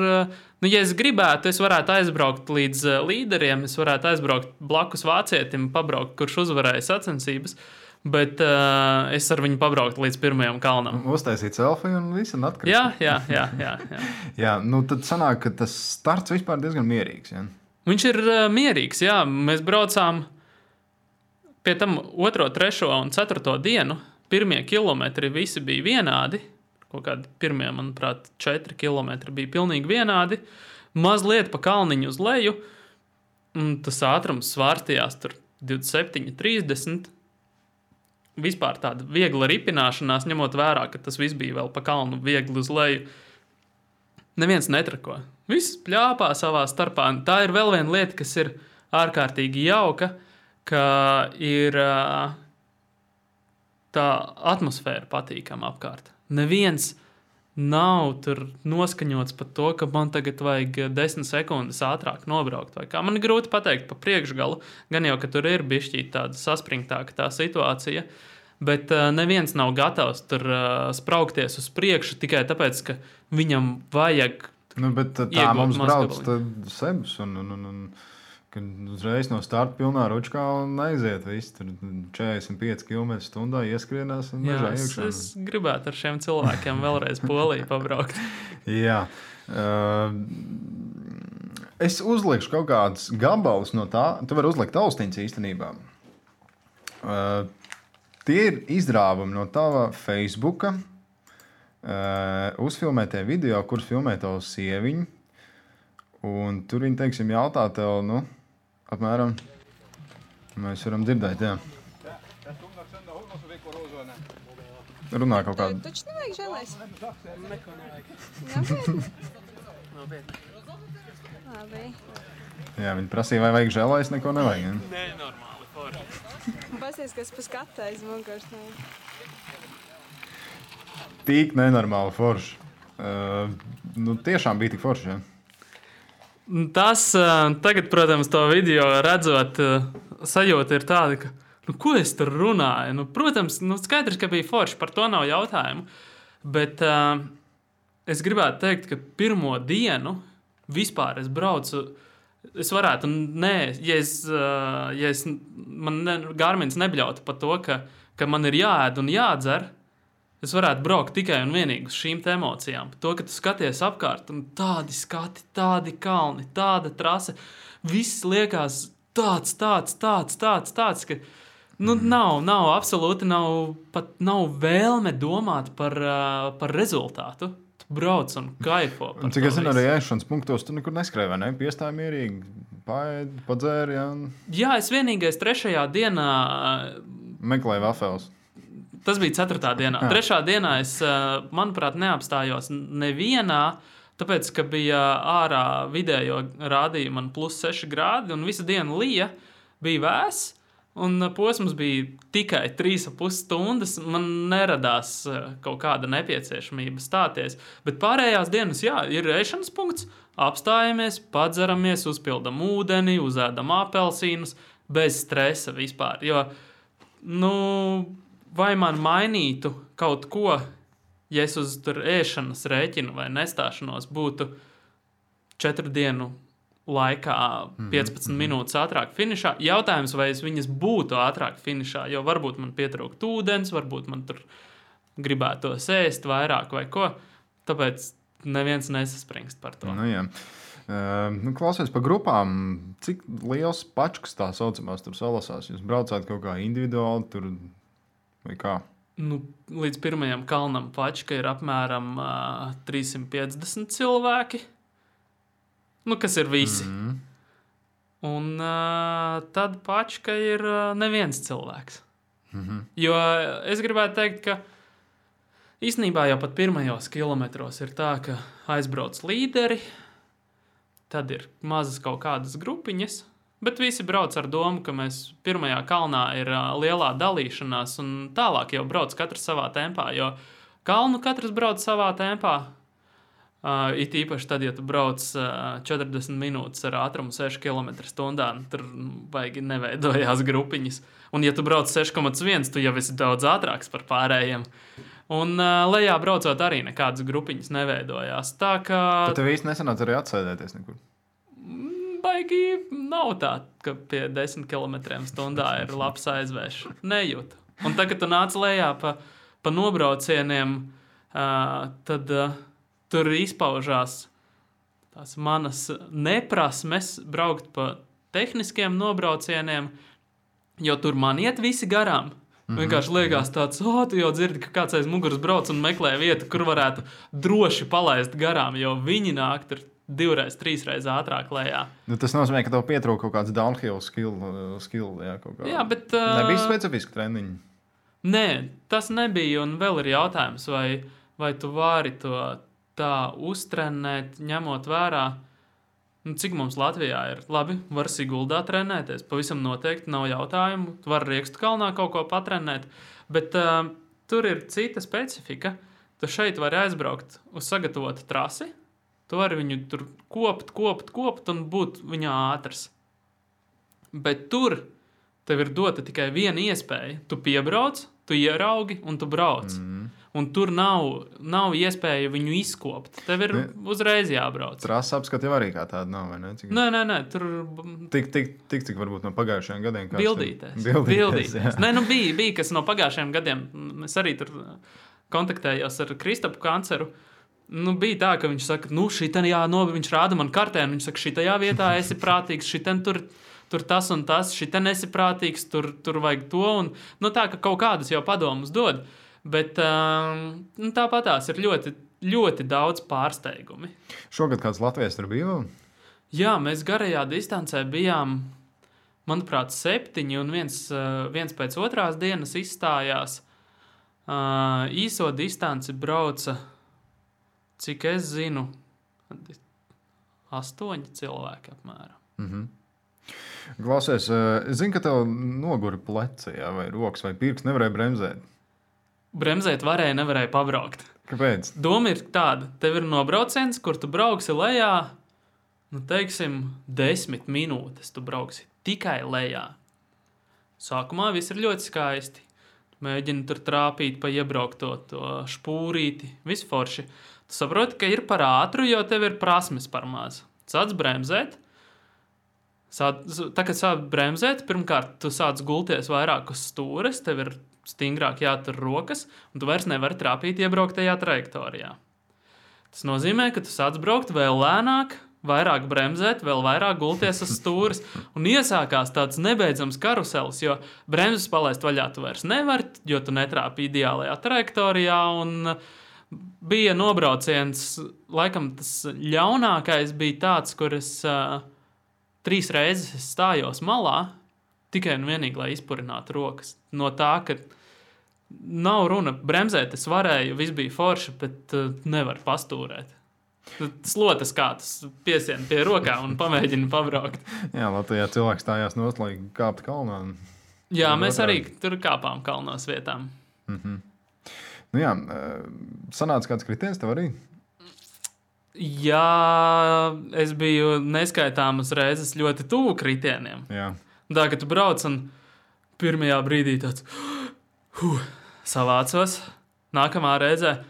ja es gribētu, es varētu aizbraukt līdz līderiem, es varētu aizbraukt blakus vācietim, pabraukt, kurš uzvarēja sacensības, bet es ar viņu pabrauktu līdz pirmajam kalnam. Uztaisīt selfiju un visu un atkrist. Jā. Jā, tad sanāk, ka tas starts vispār diezgan mierīgs, ja? Viņš ir mierīgs, jā. Mēs braucām pie tam 2., 3. un 4. dienu. Pirmie kilometri visi bija vienādi. Kaut kādi pirmie, manuprāt, 4 kilometri bija pilnīgi vienādi. Mazliet pa kalniņu uz leju. Un tas ātrums svārstījās tur 27, 30. Vispār tāda viegla ripināšanās, ņemot vērā, ka tas viss bija vēl pa kalnu viegli uz leju. Neviens netrako. Viss pļāpā savā starpā. Tā ir vēl viena lieta, kas ir ārkārtīgi jauka, ka ir tā atmosfēra patīkama apkārt. Neviens nav tur noskaņots par to, ka man tagad vajag 10 sekundes ātrāk nobraukt. Vai kā man ir grūti pateikt pa priekšgalu, gan jau, ka tur ir bišķīt tāda saspringtāka tā situācija, bet neviens nav gatavs tur spraukties uz priekšu tikai tāpēc, ka viņam vajag bet tā mums brauc Sebs un Kad uzreiz no starta pilnā ručkā un aiziet viss, tur 45 km/h ieskrienās un mežā iekšā. Es gribētu ar šiem cilvēkiem vēlreiz Poliju pabraukt. Jā. Es uzlikšu kaut kādus gabalus no tā. Tu vari uzlikt austiņas īstenībā. Tie ir izrāvumi no tava Facebooka. Uzfilmētie video, kurus filmē tavu sieviņu. Un tur viņi, teiksim, jautā tev, apmēram, mēs varam dzirdēt, jā. Runā kaut kādu. Taču nevajag žēlēs. Neko nevajag. Labi. Jā, viņi prasīja, vai vajag žēlēs, neko nevajag. Ja? Nē, normāli, forši. Pasies, kas pa skatu aiz muguras. Tik nenormāli forši. Tiešām bija tik forši, ja? Tas tagad, protams, to video redzot, sajūta ir tāda, ka, ko es tur runāju? Protams, skaidrs, ka bija forši, par to nav jautājumu. Bet es gribētu teikt, ka pirmo dienu vispār es braucu, es varētu, Garmins nebļautu par to, ka man ir jāēd un jādzer, es varētu braukt tikai un vienīgi uz šīm emocijām. To, ka tu skaties apkārt, un tādi skati, tādi kalni, tāda trase, viss liekas tāds, ka nav absolūti, nav vēlme domāt par rezultātu. Tu brauc un kaifo. Cik es zinu, arī ēšanas punktos tu nekur neskrēji, vai ne? Piestāji mierīgi, paēdi, padzēri, jā? Jā, es vienīgais 3. dienā meklēju vafeles. Tas bija 4. dienā. 3. dienā es, manuprāt, neapstājos nevienā, tāpēc, ka bija ārā vidējo rādīja man +6 grādi, un visu dienu lija, bija vēss, un posms bija tikai 3,5 stundas. Man neradās kaut kāda nepieciešamība stāties. Bet pārējās dienas, jā, ir ēšanas punkts, apstājamies, padzeramies, uzpildam ūdeni, uzēdam apelsīnus, bez stresa vispār. Jo, vai man mainītu kaut ko, ja es uz tur ēšanas rēķinu vai nestāšanos būtu 4 dienu laikā 15 minūtes ātrāk finišā? Jautājums, vai es viņas būtu ātrāk finišā, jo varbūt man pietrūkt ūdens, varbūt man tur gribētos ēst vairāk vai ko. Tāpēc neviens nesaspringst par to. Jā. Klausies par grupām. Cik liels pačkas tā saucamās tur salasās? Jūs braucāt kaut kā individuāli tur vai kā? Līdz pirmajam kalnam pačka ir apmēram 350 cilvēki. Kas ir visi. Un tad pačka ir neviens cilvēks. Jo es gribētu teikt, ka īstenībā jau pat pirmajos kilometros ir tā, ka aizbrauc līderi, tad ir mazas kaut kādas grupiņas, bet visi brauc ar domu, ka mēs pirmajā kalnā ir lielā dalīšanās, un tālāk jau brauc katrs savā tempā, jo kalnu katrs brauc savā tempā. It īpaši tad, ja tu brauc 40 minūtes ar ātrumu 6 km/h, tur baigi neveidojās grupiņas. Un ja tu brauc 6,1, tu jau esi daudz ātrāks par pārējiem. Un lejā braucot arī nekādas grupiņas neveidojās. Tā kā... Tad tev īsti nesanāca arī atsēdēties nekur? Baigi nav tā, ka pie 10 km/h ir labs aizvēš. Nejūtu. Un tagad, kad tu nāc lejā pa nobraucieniem, tad tur izpaužās tās manas neprasmes braukt pa tehniskiem nobraucieniem, jo tur man iet visi garām. Vienkārši liekas tāds, tu jau dzirdi, ka kāds aiz muguras brauc un meklē vietu, kur varētu droši palaist garām, jo viņi nāk tur 2-3 reizes ātrāk lejā. Tas nozīmē, ka tev pietrūka kaut kāds downhill skill jā, kaut kā. Jā, bet... Nebija specifiski treniņi? Nē, tas nebija, un vēl ir jautājums, vai tu vari to tā uztrenēt, ņemot vērā, cik mums Latvijā ir. Labi, var Siguldā trenēties, pavisam noteikti nav jautājumu. Tu vari Riekstu kalnā kaut ko patrenēt, bet tur ir cita specifika. Tu šeit vari aizbraukt uz sagatavotu trasi, tu vari viņu tur kopt un būt viņā ātrs. Bet tur tev ir dota tikai viena iespēja. Tu piebrauc, tu ieraugi un tu brauc. un tur nav iespēja viņu izkopt. Tev ir uzreiz jābrauc. Trasa apskata jau arī kā tāda nav, vai ne? Nē, tur... Cik varbūt no pagājušajiem gadiem. Bildīties. Nē, bija kas no pagājušajiem gadiem. Es arī tur kontaktējos ar Kristapu Kanceru. Bija tā, ka viņš saka, viņš rāda man kartē, un viņš saka, šitajā vietā esi prātīgs, šiten tur tas un tas, šiten esi prātīgs, tur vajag to, un tā, ka kaut kādas jau padomus dod, bet tāpatās ir ļoti, ļoti daudz pārsteigumi. Šogad kāds Latvijas tur bija vēl? Jā, mēs garajā distancē bijām, manuprāt, 7, un viens pēc otrās dienas izstājās. Īso distanci brauca, cik es zinu, 8 cilvēki apmēram. Mhm. Klausies, es zinu, ka tev nogura pleci, vai rokas vai pirks, nevarēja bremzēt. Bremzēt varēja, nevarēja pabraukt. Kāpēc? Doma ir tāda, tev ir nobrauciens, kur tu brauksi lejā, teiksim, 10 minūtes tu brauksi tikai lejā. Sākumā viss ir ļoti skaisti. Mēģini tur trāpīt pa iebraukto to špūrīti, viss forši. Tu saproti, ka ir par ātru, jo tev ir prasmes par maz. Sāc bremzēt. Tā, kad sāc bremzēt, pirmkārt, tu sāc gulties vairāk uz stūres, tev ir stingrāk jātur rokas, un tu vairs nevari trāpīt iebrauktajā trajektorijā. Tas nozīmē, ka tu sāc braukt vēl lēnāk, vairāk bremzēt, vēl vairāk gulties uz stūres, un iesākās tāds nebeidzams karuselis, jo bremzes palaist vaļā tu vairs nevari, jo tu netrāpi ideālajā trajektorijā, un bija nobrauciens, laikam tas ļaunākais bija tāds, kur es 3 reizes stājos malā, tikai un vienīgi, lai izpurinātu rokas. No tā, ka nav runa, bremzēt es varēju, viss bija forši, bet nevar pastūrēt. Slotas kāds piesien pie rokā un pamēģina pabraukt. Jā, Latvijā cilvēks stājās nost, lai kāptu kalnā. Jā, mēs arī tur kāpām kalnos vietām. Mhm. Jā, sanāca kāds kritiens tev arī? Jā, es biju neskaitāmas reizes ļoti tuvu kritieniem. Jā. Tā, ka tu brauc un pirmajā brīdī tāds savācos, nākamā reizē,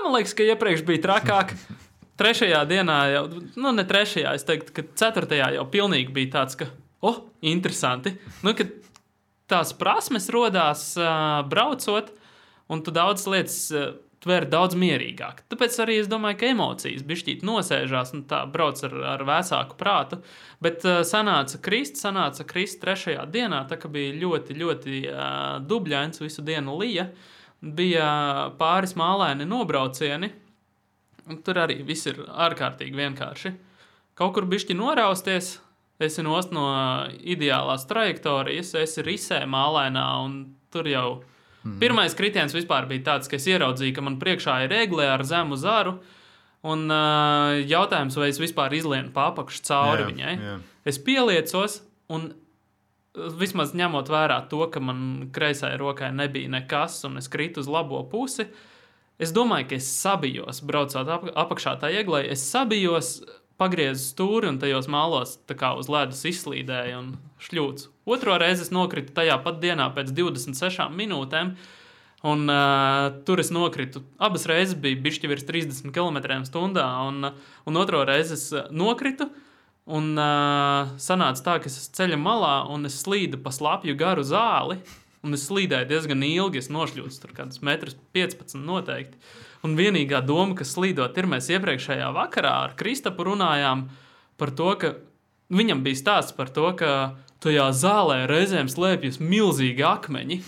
man liekas, ka iepriekš bija trakāk. 3. dienā jau, ne 3. es teiktu, ka 4. jau pilnīgi bija tāds, ka, interesanti. Ka tās prasmes rodās braucot, un tu daudz lietas tver daudz mierīgāk. Tāpēc arī es domāju, ka emocijas bišķīt nosēžās un tā brauc ar vēsāku prātu. Bet sanāca krist 3. dienā, tā ka bija ļoti, ļoti dubļains, visu dienu lija. Bija pāris mālaini nobraucieni, un tur arī viss ir ārkārtīgi vienkārši. Kaut kur bišķi norausties, esi nost no ideālās trajektorijas, esi risē mālainā, un tur jau pirmais kritiens vispār bija tāds, ka es ieraudzīju, ka man priekšā ir egle ar zemu zaru, un jautājums, vai es vispār izlienu pa apakšu cauri viņai. Jā. Es pieliecos, un vismaz ņemot vērā to, ka man kreisai rokai nebija nekas, un es kritu uz labo pusi, es domāju, ka es sabijos, braucot apakšā tā eglei, es sabijos, pagriezu stūri un tajos mālos tā kā uz ledus izslīdēju un šļūcu. Otro reizi es nokritu tajā pat dienā pēc 26 minūtēm, un tur es nokritu. Abas reizes bija bišķi virs 30 km/h, un otro reizi es nokritu, un sanāca tā, ka es ceļa malā, un es slīdu pa slapju garu zāli, un es slīdēju diezgan ilgi, es nošļūcu tur kādus 1,15 m noteikti. Un vienīgā doma, kas slīdot, ir mēs iepriekšējā vakarā ar Kristapu runājām par to, ka viņam bija stāsts par to, ka tajā zālē reizēm slēpjas milzīgi akmeņi,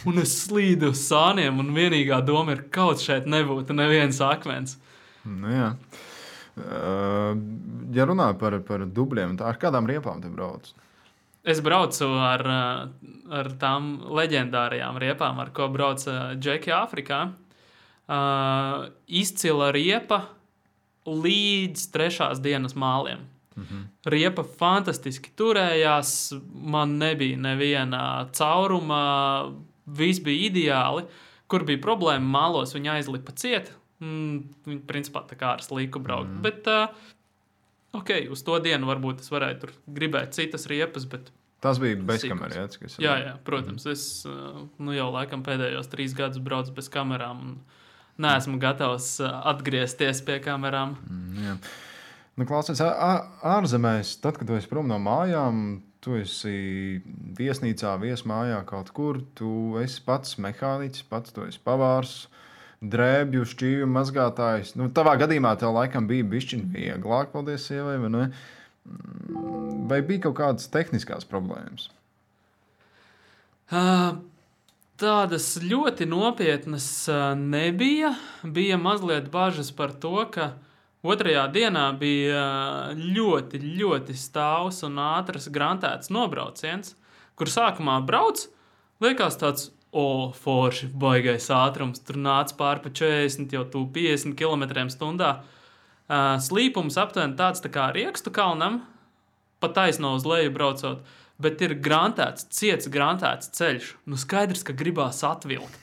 un es slīdu uz sāniem, un vienīgā doma ir, kaut šeit nebūtu neviens akmens. Nu jā. Ja runā par dubļiem, ar kādām riepām te brauc? Es braucu ar tām leģendārajām riepām, ar ko brauca Džeki Āfrikā. Izcila riepa līdz 3. dienas māliem. Riepa fantastiski turējās, man nebija neviena cauruma, viss bija ideāli. Kur bija problēma mālos, viņa aizlipa ciet. Viņa principā tā kā ar slīku braukt. Bet uz to dienu varbūt es varēju tur gribēt citas riepas, bet Tas bija bez kamerām. Jā, protams. Es jau laikam pēdējos 3 gadus braucu bez kamerām un neesmu gatavs atgriezties pie kamerām. Jā. Nu, klausies, ārzemēs, tad, kad tu esi prom no mājām, tu esi viesnīcā, viesmājā kaut kur, tu esi pats mehāniķis, pats tu esi pavārs, drēbju, šķīvju mazgātājs. Nu, tavā gadījumā tev laikam bija bišķiņ vieglāk, paldies sievai, vai ne? Vai bija kaut kādas tehniskās problēmas? Tādas ļoti nopietnas nebija. Bija mazliet bažas par to, ka otrajā dienā bija ļoti, ļoti stāvs un ātrs grantēts nobrauciens, kur sākumā brauc, liekas tāds, forši, baigais ātrums, tur nāc pār pa 40, jau tu 50 km/h. Slīpums aptuveni tāds tā kā Riekstu kalnam, pa taisno uz leju braucot, bet ir grantēts, ciets grantēts ceļš. Nu skaidrs, ka gribās atvilkt.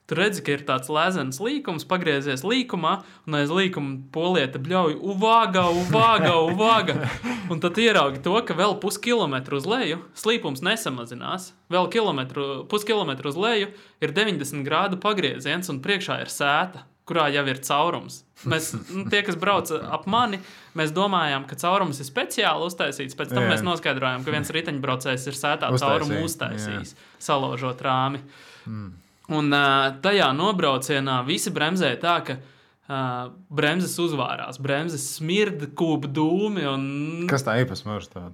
Tu redzi, ka ir tāds lēzens līkums, pagriezies līkumā, un aiz līkuma polieta bļauj uvāga. Un tad ieraugi to, ka vēl puskilometru uz leju slīpums nesamazinās. Vēl puskilometru uz leju ir 90 grādu pagrieziens, un priekšā ir sēta, kurā jau ir caurums. Mēs, tie, kas brauc ap mani, mēs domājām, ka caurums ir speciāli uztaisīts. Pēc tam mēs noskaidrojām, ka viens riteņbraucējs ir sētā caurumu uztaisījis, salaužot rāmi. Un tajā nobraucienā visi bremzēja tā, ka bremzes uzvārās, bremzes smirda, kūp dūmi. Un, kas tā īpasmērs tāda?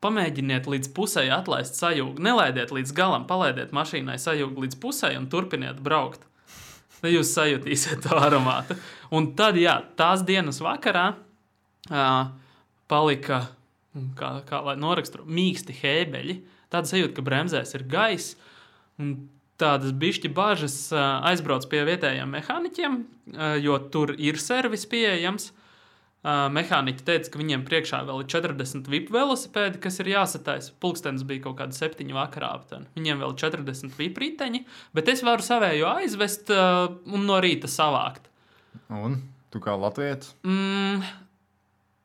Pamēģiniet līdz pusei atlaist sajūgu. Nelaidiet līdz galam, palaidiet mašīnai sajūgu līdz pusei un turpiniet braukt. Tad jūs sajutīsiet to aromātu. Un tad, tās dienas vakarā palika, kā lai noraksturo, mīksti hēbeļi. Tāda sajūta, ka bremzēs ir gaiss. Un tādas bišķi bažas aizbrauc pie vietējiem mehāniķiem, jo tur ir servis pieejams. Mehāniķi teica, ka viņiem priekšā vēl ir 40 VIP velosipēdi, kas ir jāsataisa. Pulkstenis bija kaut kāda 7 vakarā aptuveni. Viņiem vēl 40 VIP riteņi, bet es varu savējo aizvest un no rīta savākt. Un tu kā latvietis?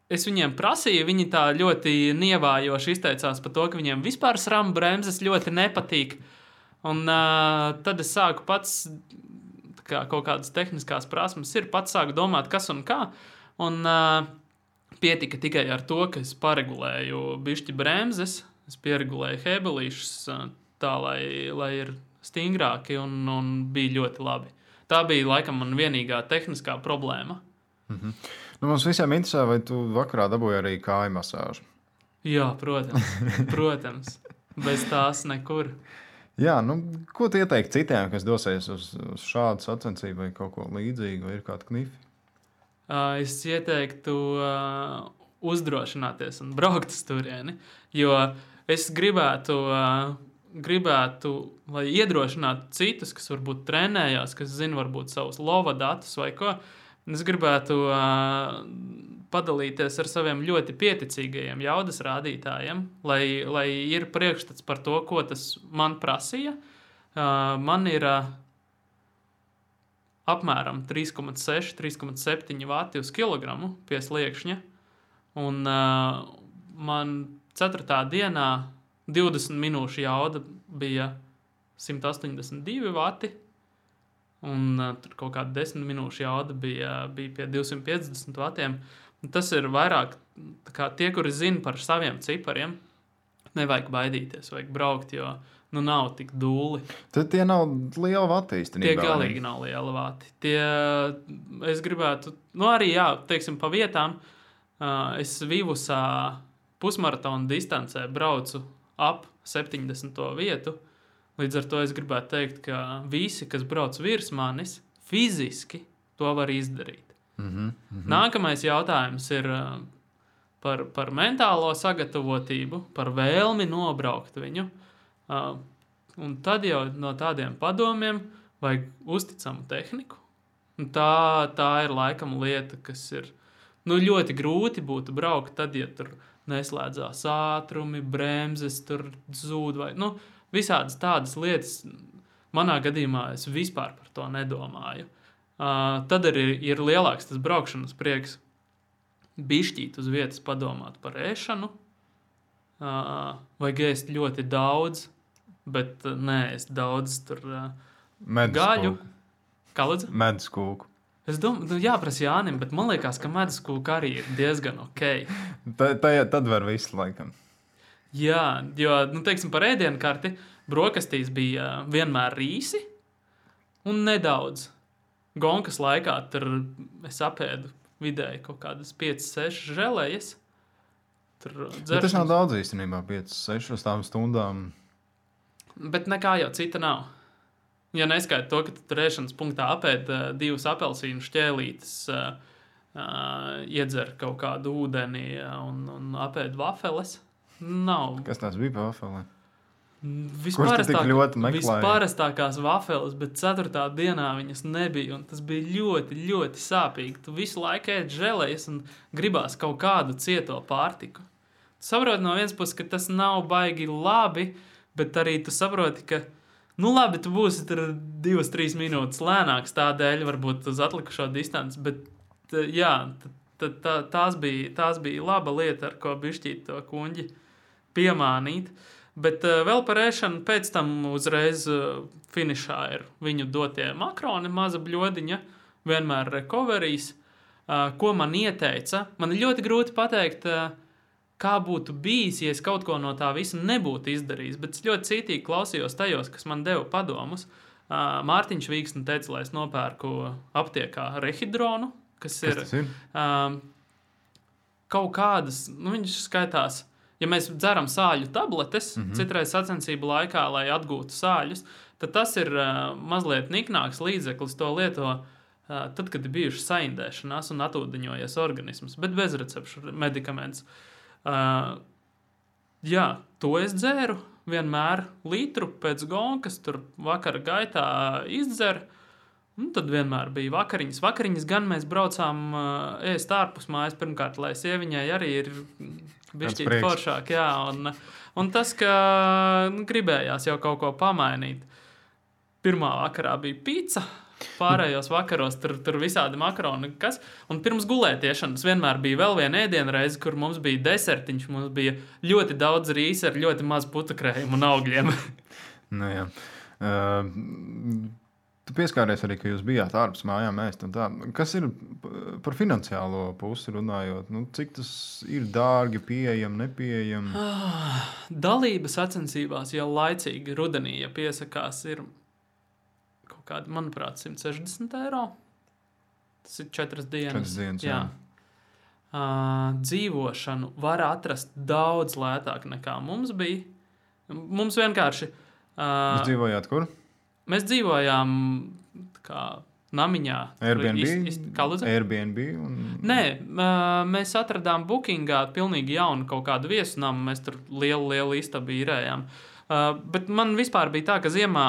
Es viņiem prasīju, viņi tā ļoti nievājoši izteicās par to, ka viņiem vispār SRAM bremzes ļoti nepatīk. Un tad es sāku pats, kā kaut kādas tehniskās prasmes ir, pats sāku domāt, kas un kā. Un pietika tikai ar to, ka es paregulēju bišķi bremzes, es pieregulēju hebelīšus tā, lai ir stingrāki un bija ļoti labi. Tā bija laikam man vienīgā tehniskā problēma. Nu, mums visiem interesē, vai tu vakarā dabūji arī kāju masāžu? Jā, protams. Bez tās nekur. Jā, nu, ko tu ieteikti citiem, kas dosies uz šādu sacensību vai kaut ko līdzīgu, vai ir kādi knifi? Es ieteiktu uzdrošināties un braukt uz turieni, jo es gribētu, lai iedrošinātu citus, kas varbūt trenējās, kas zina varbūt savus lova datus vai ko. Es gribētu padalīties ar saviem ļoti pieticīgajiem jaudas rādītājiem, lai ir priekšstats par to, ko tas man prasīja. Man ir apmēram 3,6–3,7 vati uz kilogramu pie sliekšņa. Un man 4. dienā 20 minūšu jauda bija 182 vati. Un tur kaut kāda 10 minūšu jauda bija pie 250 vatiem. Un tas ir vairāk, kā tie, kuri zina par saviem cipariem, nevajag baidīties, vajag braukt, jo nav tik dūli. Tad tie nav liela vati īstenībā. Tie galīgi nav liela vati. Es gribētu, arī, teiksim, pa vietām, es Vivusā pusmaratona distancē braucu ap 70. vietu. Līdz ar to es gribētu teikt, ka visi, kas brauc virs manis, fiziski to var izdarīt. Nākamais jautājums ir par mentālo sagatavotību, par vēlmi nobraukt viņu. Un tad jau no tādiem padomiem vajag uzticamu tehniku. Un tā ir laikam lieta, kas ir ļoti grūti būtu braukt tad, ja tur neslēdzās ātrumi, bremzes tur zūd vai visādas tādas lietas. Manā gadījumā es vispār par to nedomāju. Tad arī ir lielāks tas braukšanas prieks bišķīt uz vietas padomāt par ēšanu, vajag ēst ļoti daudz, bet neēst daudz tur Meduskūku. Kā lūdzu? Meduskūku. Es domāju, jāprasa Jānim, bet man liekas, ka meduskūka arī ir diezgan ok. Tad var visu laikam. Jā, jo, teiksim, par ēdienkarti brokastīs bija vienmēr rīsi un nedaudz. Gonkas laikā tur es apēdu vidēji kaut kādas 5-6 želējas. Bet tas nav daudz īstenībā, 5-6 stundām. Bet nekā jau cita nav. Ja neskaita to, ka tu tur ēšanas punktā apēd 2 apelsīnu šķēlītes, iedzer kaut kādu ūdeni un apēd vafeles, nav. Kas tās bija pa vafelē? Vispārastākās vafeles, bet 4. dienā viņas nebija, un tas bija ļoti, ļoti sāpīgi. Tu visu laiku ēd želējas un gribās kaut kādu cieto pārtiku. Tu saproti no vienas puses, ka tas nav baigi labi, bet arī tu saproti, ka labi, tu būsi tur 2-3 minūtes lēnāks tādēļ, varbūt uz atlikušo distanci, bet jā, tās bija laba lieta, ar ko bišķīt to kuņģi piemānīt. Bet vēl par ēšanu pēc tam uzreiz finišā ir viņu dotie makroni, maza bļodiņa, vienmēr recoveries, ko man ieteica. Man ir ļoti grūti pateikt, kā būtu bijis, ja es kaut ko no tā visa nebūtu izdarījis, bet es ļoti cītīgi klausījos tajos, kas man deva padomus. Mārtiņš Vīksne teica, lai es nopērku aptiekā rehidronu, kas ir kaut kādas, viņš skaitās, ja mēs dzeram sāļu tabletes, citreiz sacensību laikā, lai atgūtu sāļus, tad tas ir mazliet niknāks līdzeklis, to lieto tad, kad ir bijuši saindēšanās un atūdeņojies organisms, bet bez recepšu medikaments. Jā, to es dzēru vienmēr litru pēc gonkas, tur vakara gaitā izdzer, un tad vienmēr bija vakariņas. Vakariņas gan mēs braucām ēst ārpus mājas, pirmkārt, lai sieviņai arī ir bišķīt foršāk, jā, un tas, ka gribējās jau kaut ko pamainīt. Pirmā vakarā bija pizza, pārējos vakaros tur visādi makaroni, kas, un pirms gulētiešanas vienmēr bija vēl viena ēdienreize, kur mums bija desertiņš, mums bija ļoti daudz rīsa ar ļoti maz putukrējumu un augļiem. Nu jā. Tu pieskāries arī, ka jūs bijāt ārpus mājām ēst un tā. Kas ir par finansiālo pusi runājot? Cik tas ir dārgi, pieejami, nepieejami? Dalība sacensībās jau laicīgi rudenī, ja piesakās, ir kaut kādi, manuprāt, 160 eiro. Tas ir 4 dienas. 4 dienas, jā. Dzīvošanu var atrast daudz lētāk nekā mums bija. Mums vienkārši... Jūs dzīvojāt kur? Mēs dzīvojām kā namiņā. Airbnb? Kā lūdzu? Airbnb? Nē, mēs atradām Bookingā pilnīgi jaunu kaut kādu viesunamu. Mēs tur lielu istabu īrējām. Bet man vispār bija tā, ka ziemā,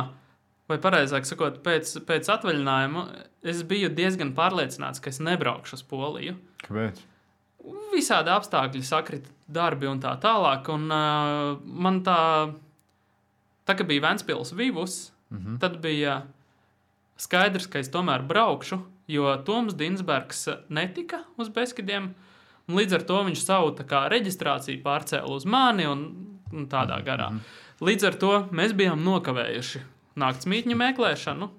vai pareizāk sakot, pēc atvaļinājuma, es biju diezgan pārliecināts, ka es nebraukšu uz Poliju. Kāpēc? Visādi apstākļi sakrita darbi un tā tālāk. Un man tā ka bija Ventspils Vivus, tad bija skaidrs, ka es tomēr braukšu, jo Toms Dinsbergs netika uz Beskidiem, un līdz ar to viņš savu reģistrāciju pārcēla uz mani un tādā garā. Līdz ar to mēs bijām nokavējuši naktsmītņu meklēšanu,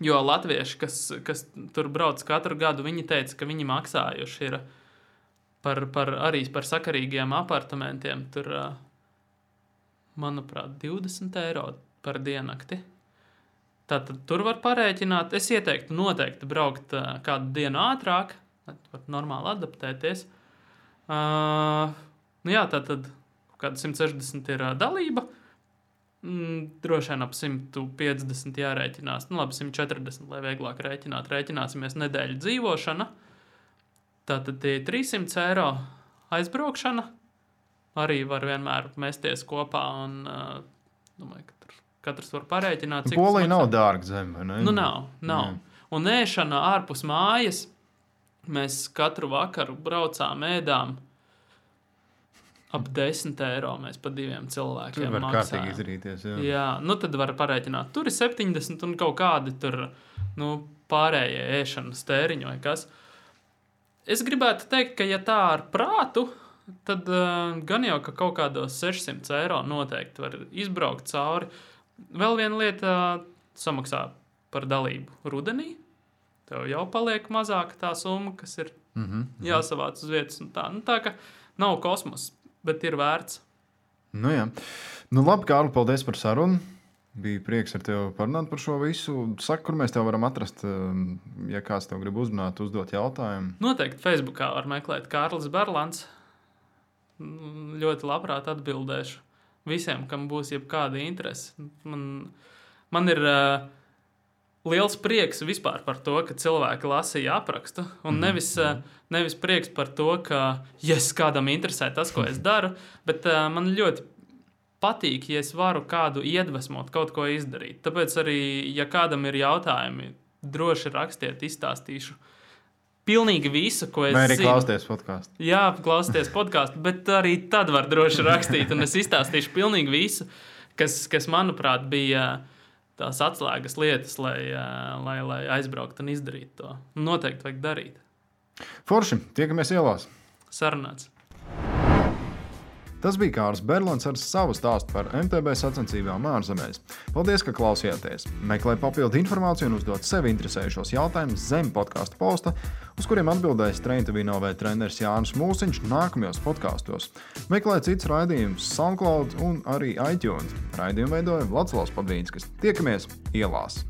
jo latvieši, kas tur brauc katru gadu, viņi teica, ka viņi maksājuši ir arī par sakarīgiem apartamentiem, tur, manuprāt, 20 eiro par diennakti. Tātad tur var parēķināt. Es ieteiktu noteikti braukt kādu dienu ātrāk, lai var normāli adaptēties. Jā, tātad kāda 160 ir dalība. Droši vien ap 150 jārēķinās. Labi, 140, lai vieglāk rēķināt. Rēķināsimies nedēļu dzīvošana. Tātad tie 300 eiro aizbraukšana. Arī var vienmēr mesties kopā un domāju, ka tur katrs var parēķināt, cik Polija nav dārga zeme, vai ne? Nav. Un ēšana ārpus mājas, mēs katru vakaru braucām, ēdām ap 10 eiro mēs pa 2 cilvēkiem tur var maksājam. kārtīgi izrīties, jā. Jā, tad var parēķināt. Tur ir 70 un kaut kādi tur, pārējie ēšanas tēriņi vai kas. Es gribētu teikt, ka ja tā ar prātu, tad gan jau, ka kaut kādos 600 eiro noteikti var izbraukt cauri. Vēl viena lieta samaksā par dalību rudenī. Tev jau paliek mazāka tā summa, kas ir jāsavāc uz vietas. Tā ka nav kosmos, bet ir vērts. Nu jā. Nu labi, Kārli, paldies par sarunu. Bija prieks ar tevi parunāt par šo visu. Saka, kur mēs tev varam atrast, ja kāds tev grib uzrunāt, uzdot jautājumu. Noteikti Facebookā var meklēt Kārlis Berlants. Ļoti labprāt atbildēšu visiem, kam būs jebkāda interese. Man ir liels prieks vispār par to, ka cilvēki lasīja aprakstu. Un nevis prieks par to, ka kādam interesē tas, ko es daru, bet man ļoti patīk, ja es varu kādu iedvesmot, kaut ko izdarīt. Tāpēc arī, ja kādam ir jautājumi, droši rakstiet, izstāstīšu pilnīgi visu, ko es zinu. Vai arī klausties podcastu. Jā, klausties podcastu, bet arī tad var droši rakstīt, un es izstāstīšu pilnīgi visu, kas manuprāt, bija tās atslēgas lietas, lai aizbraukt un izdarīt to. Noteikti vajag darīt. Forši, tiekamies ielās. Sarunāts. Tas bija Kārlis Berlants ar savu stāstu par MTB sacensībām ārzemēs. Paldies, ka klausījāties! Meklē papildu informāciju un uzdot sevi interesējušos jautājumus zem podcastu posta, uz kuriem atbildēs Train2NOV treneris Jānis Mūsiņš nākamajos podkastos. Meklē citus raidījumus SoundCloud un arī iTunes. Raidījumu veidoja Vladislavs Padvīnskis. Tiekamies ielās!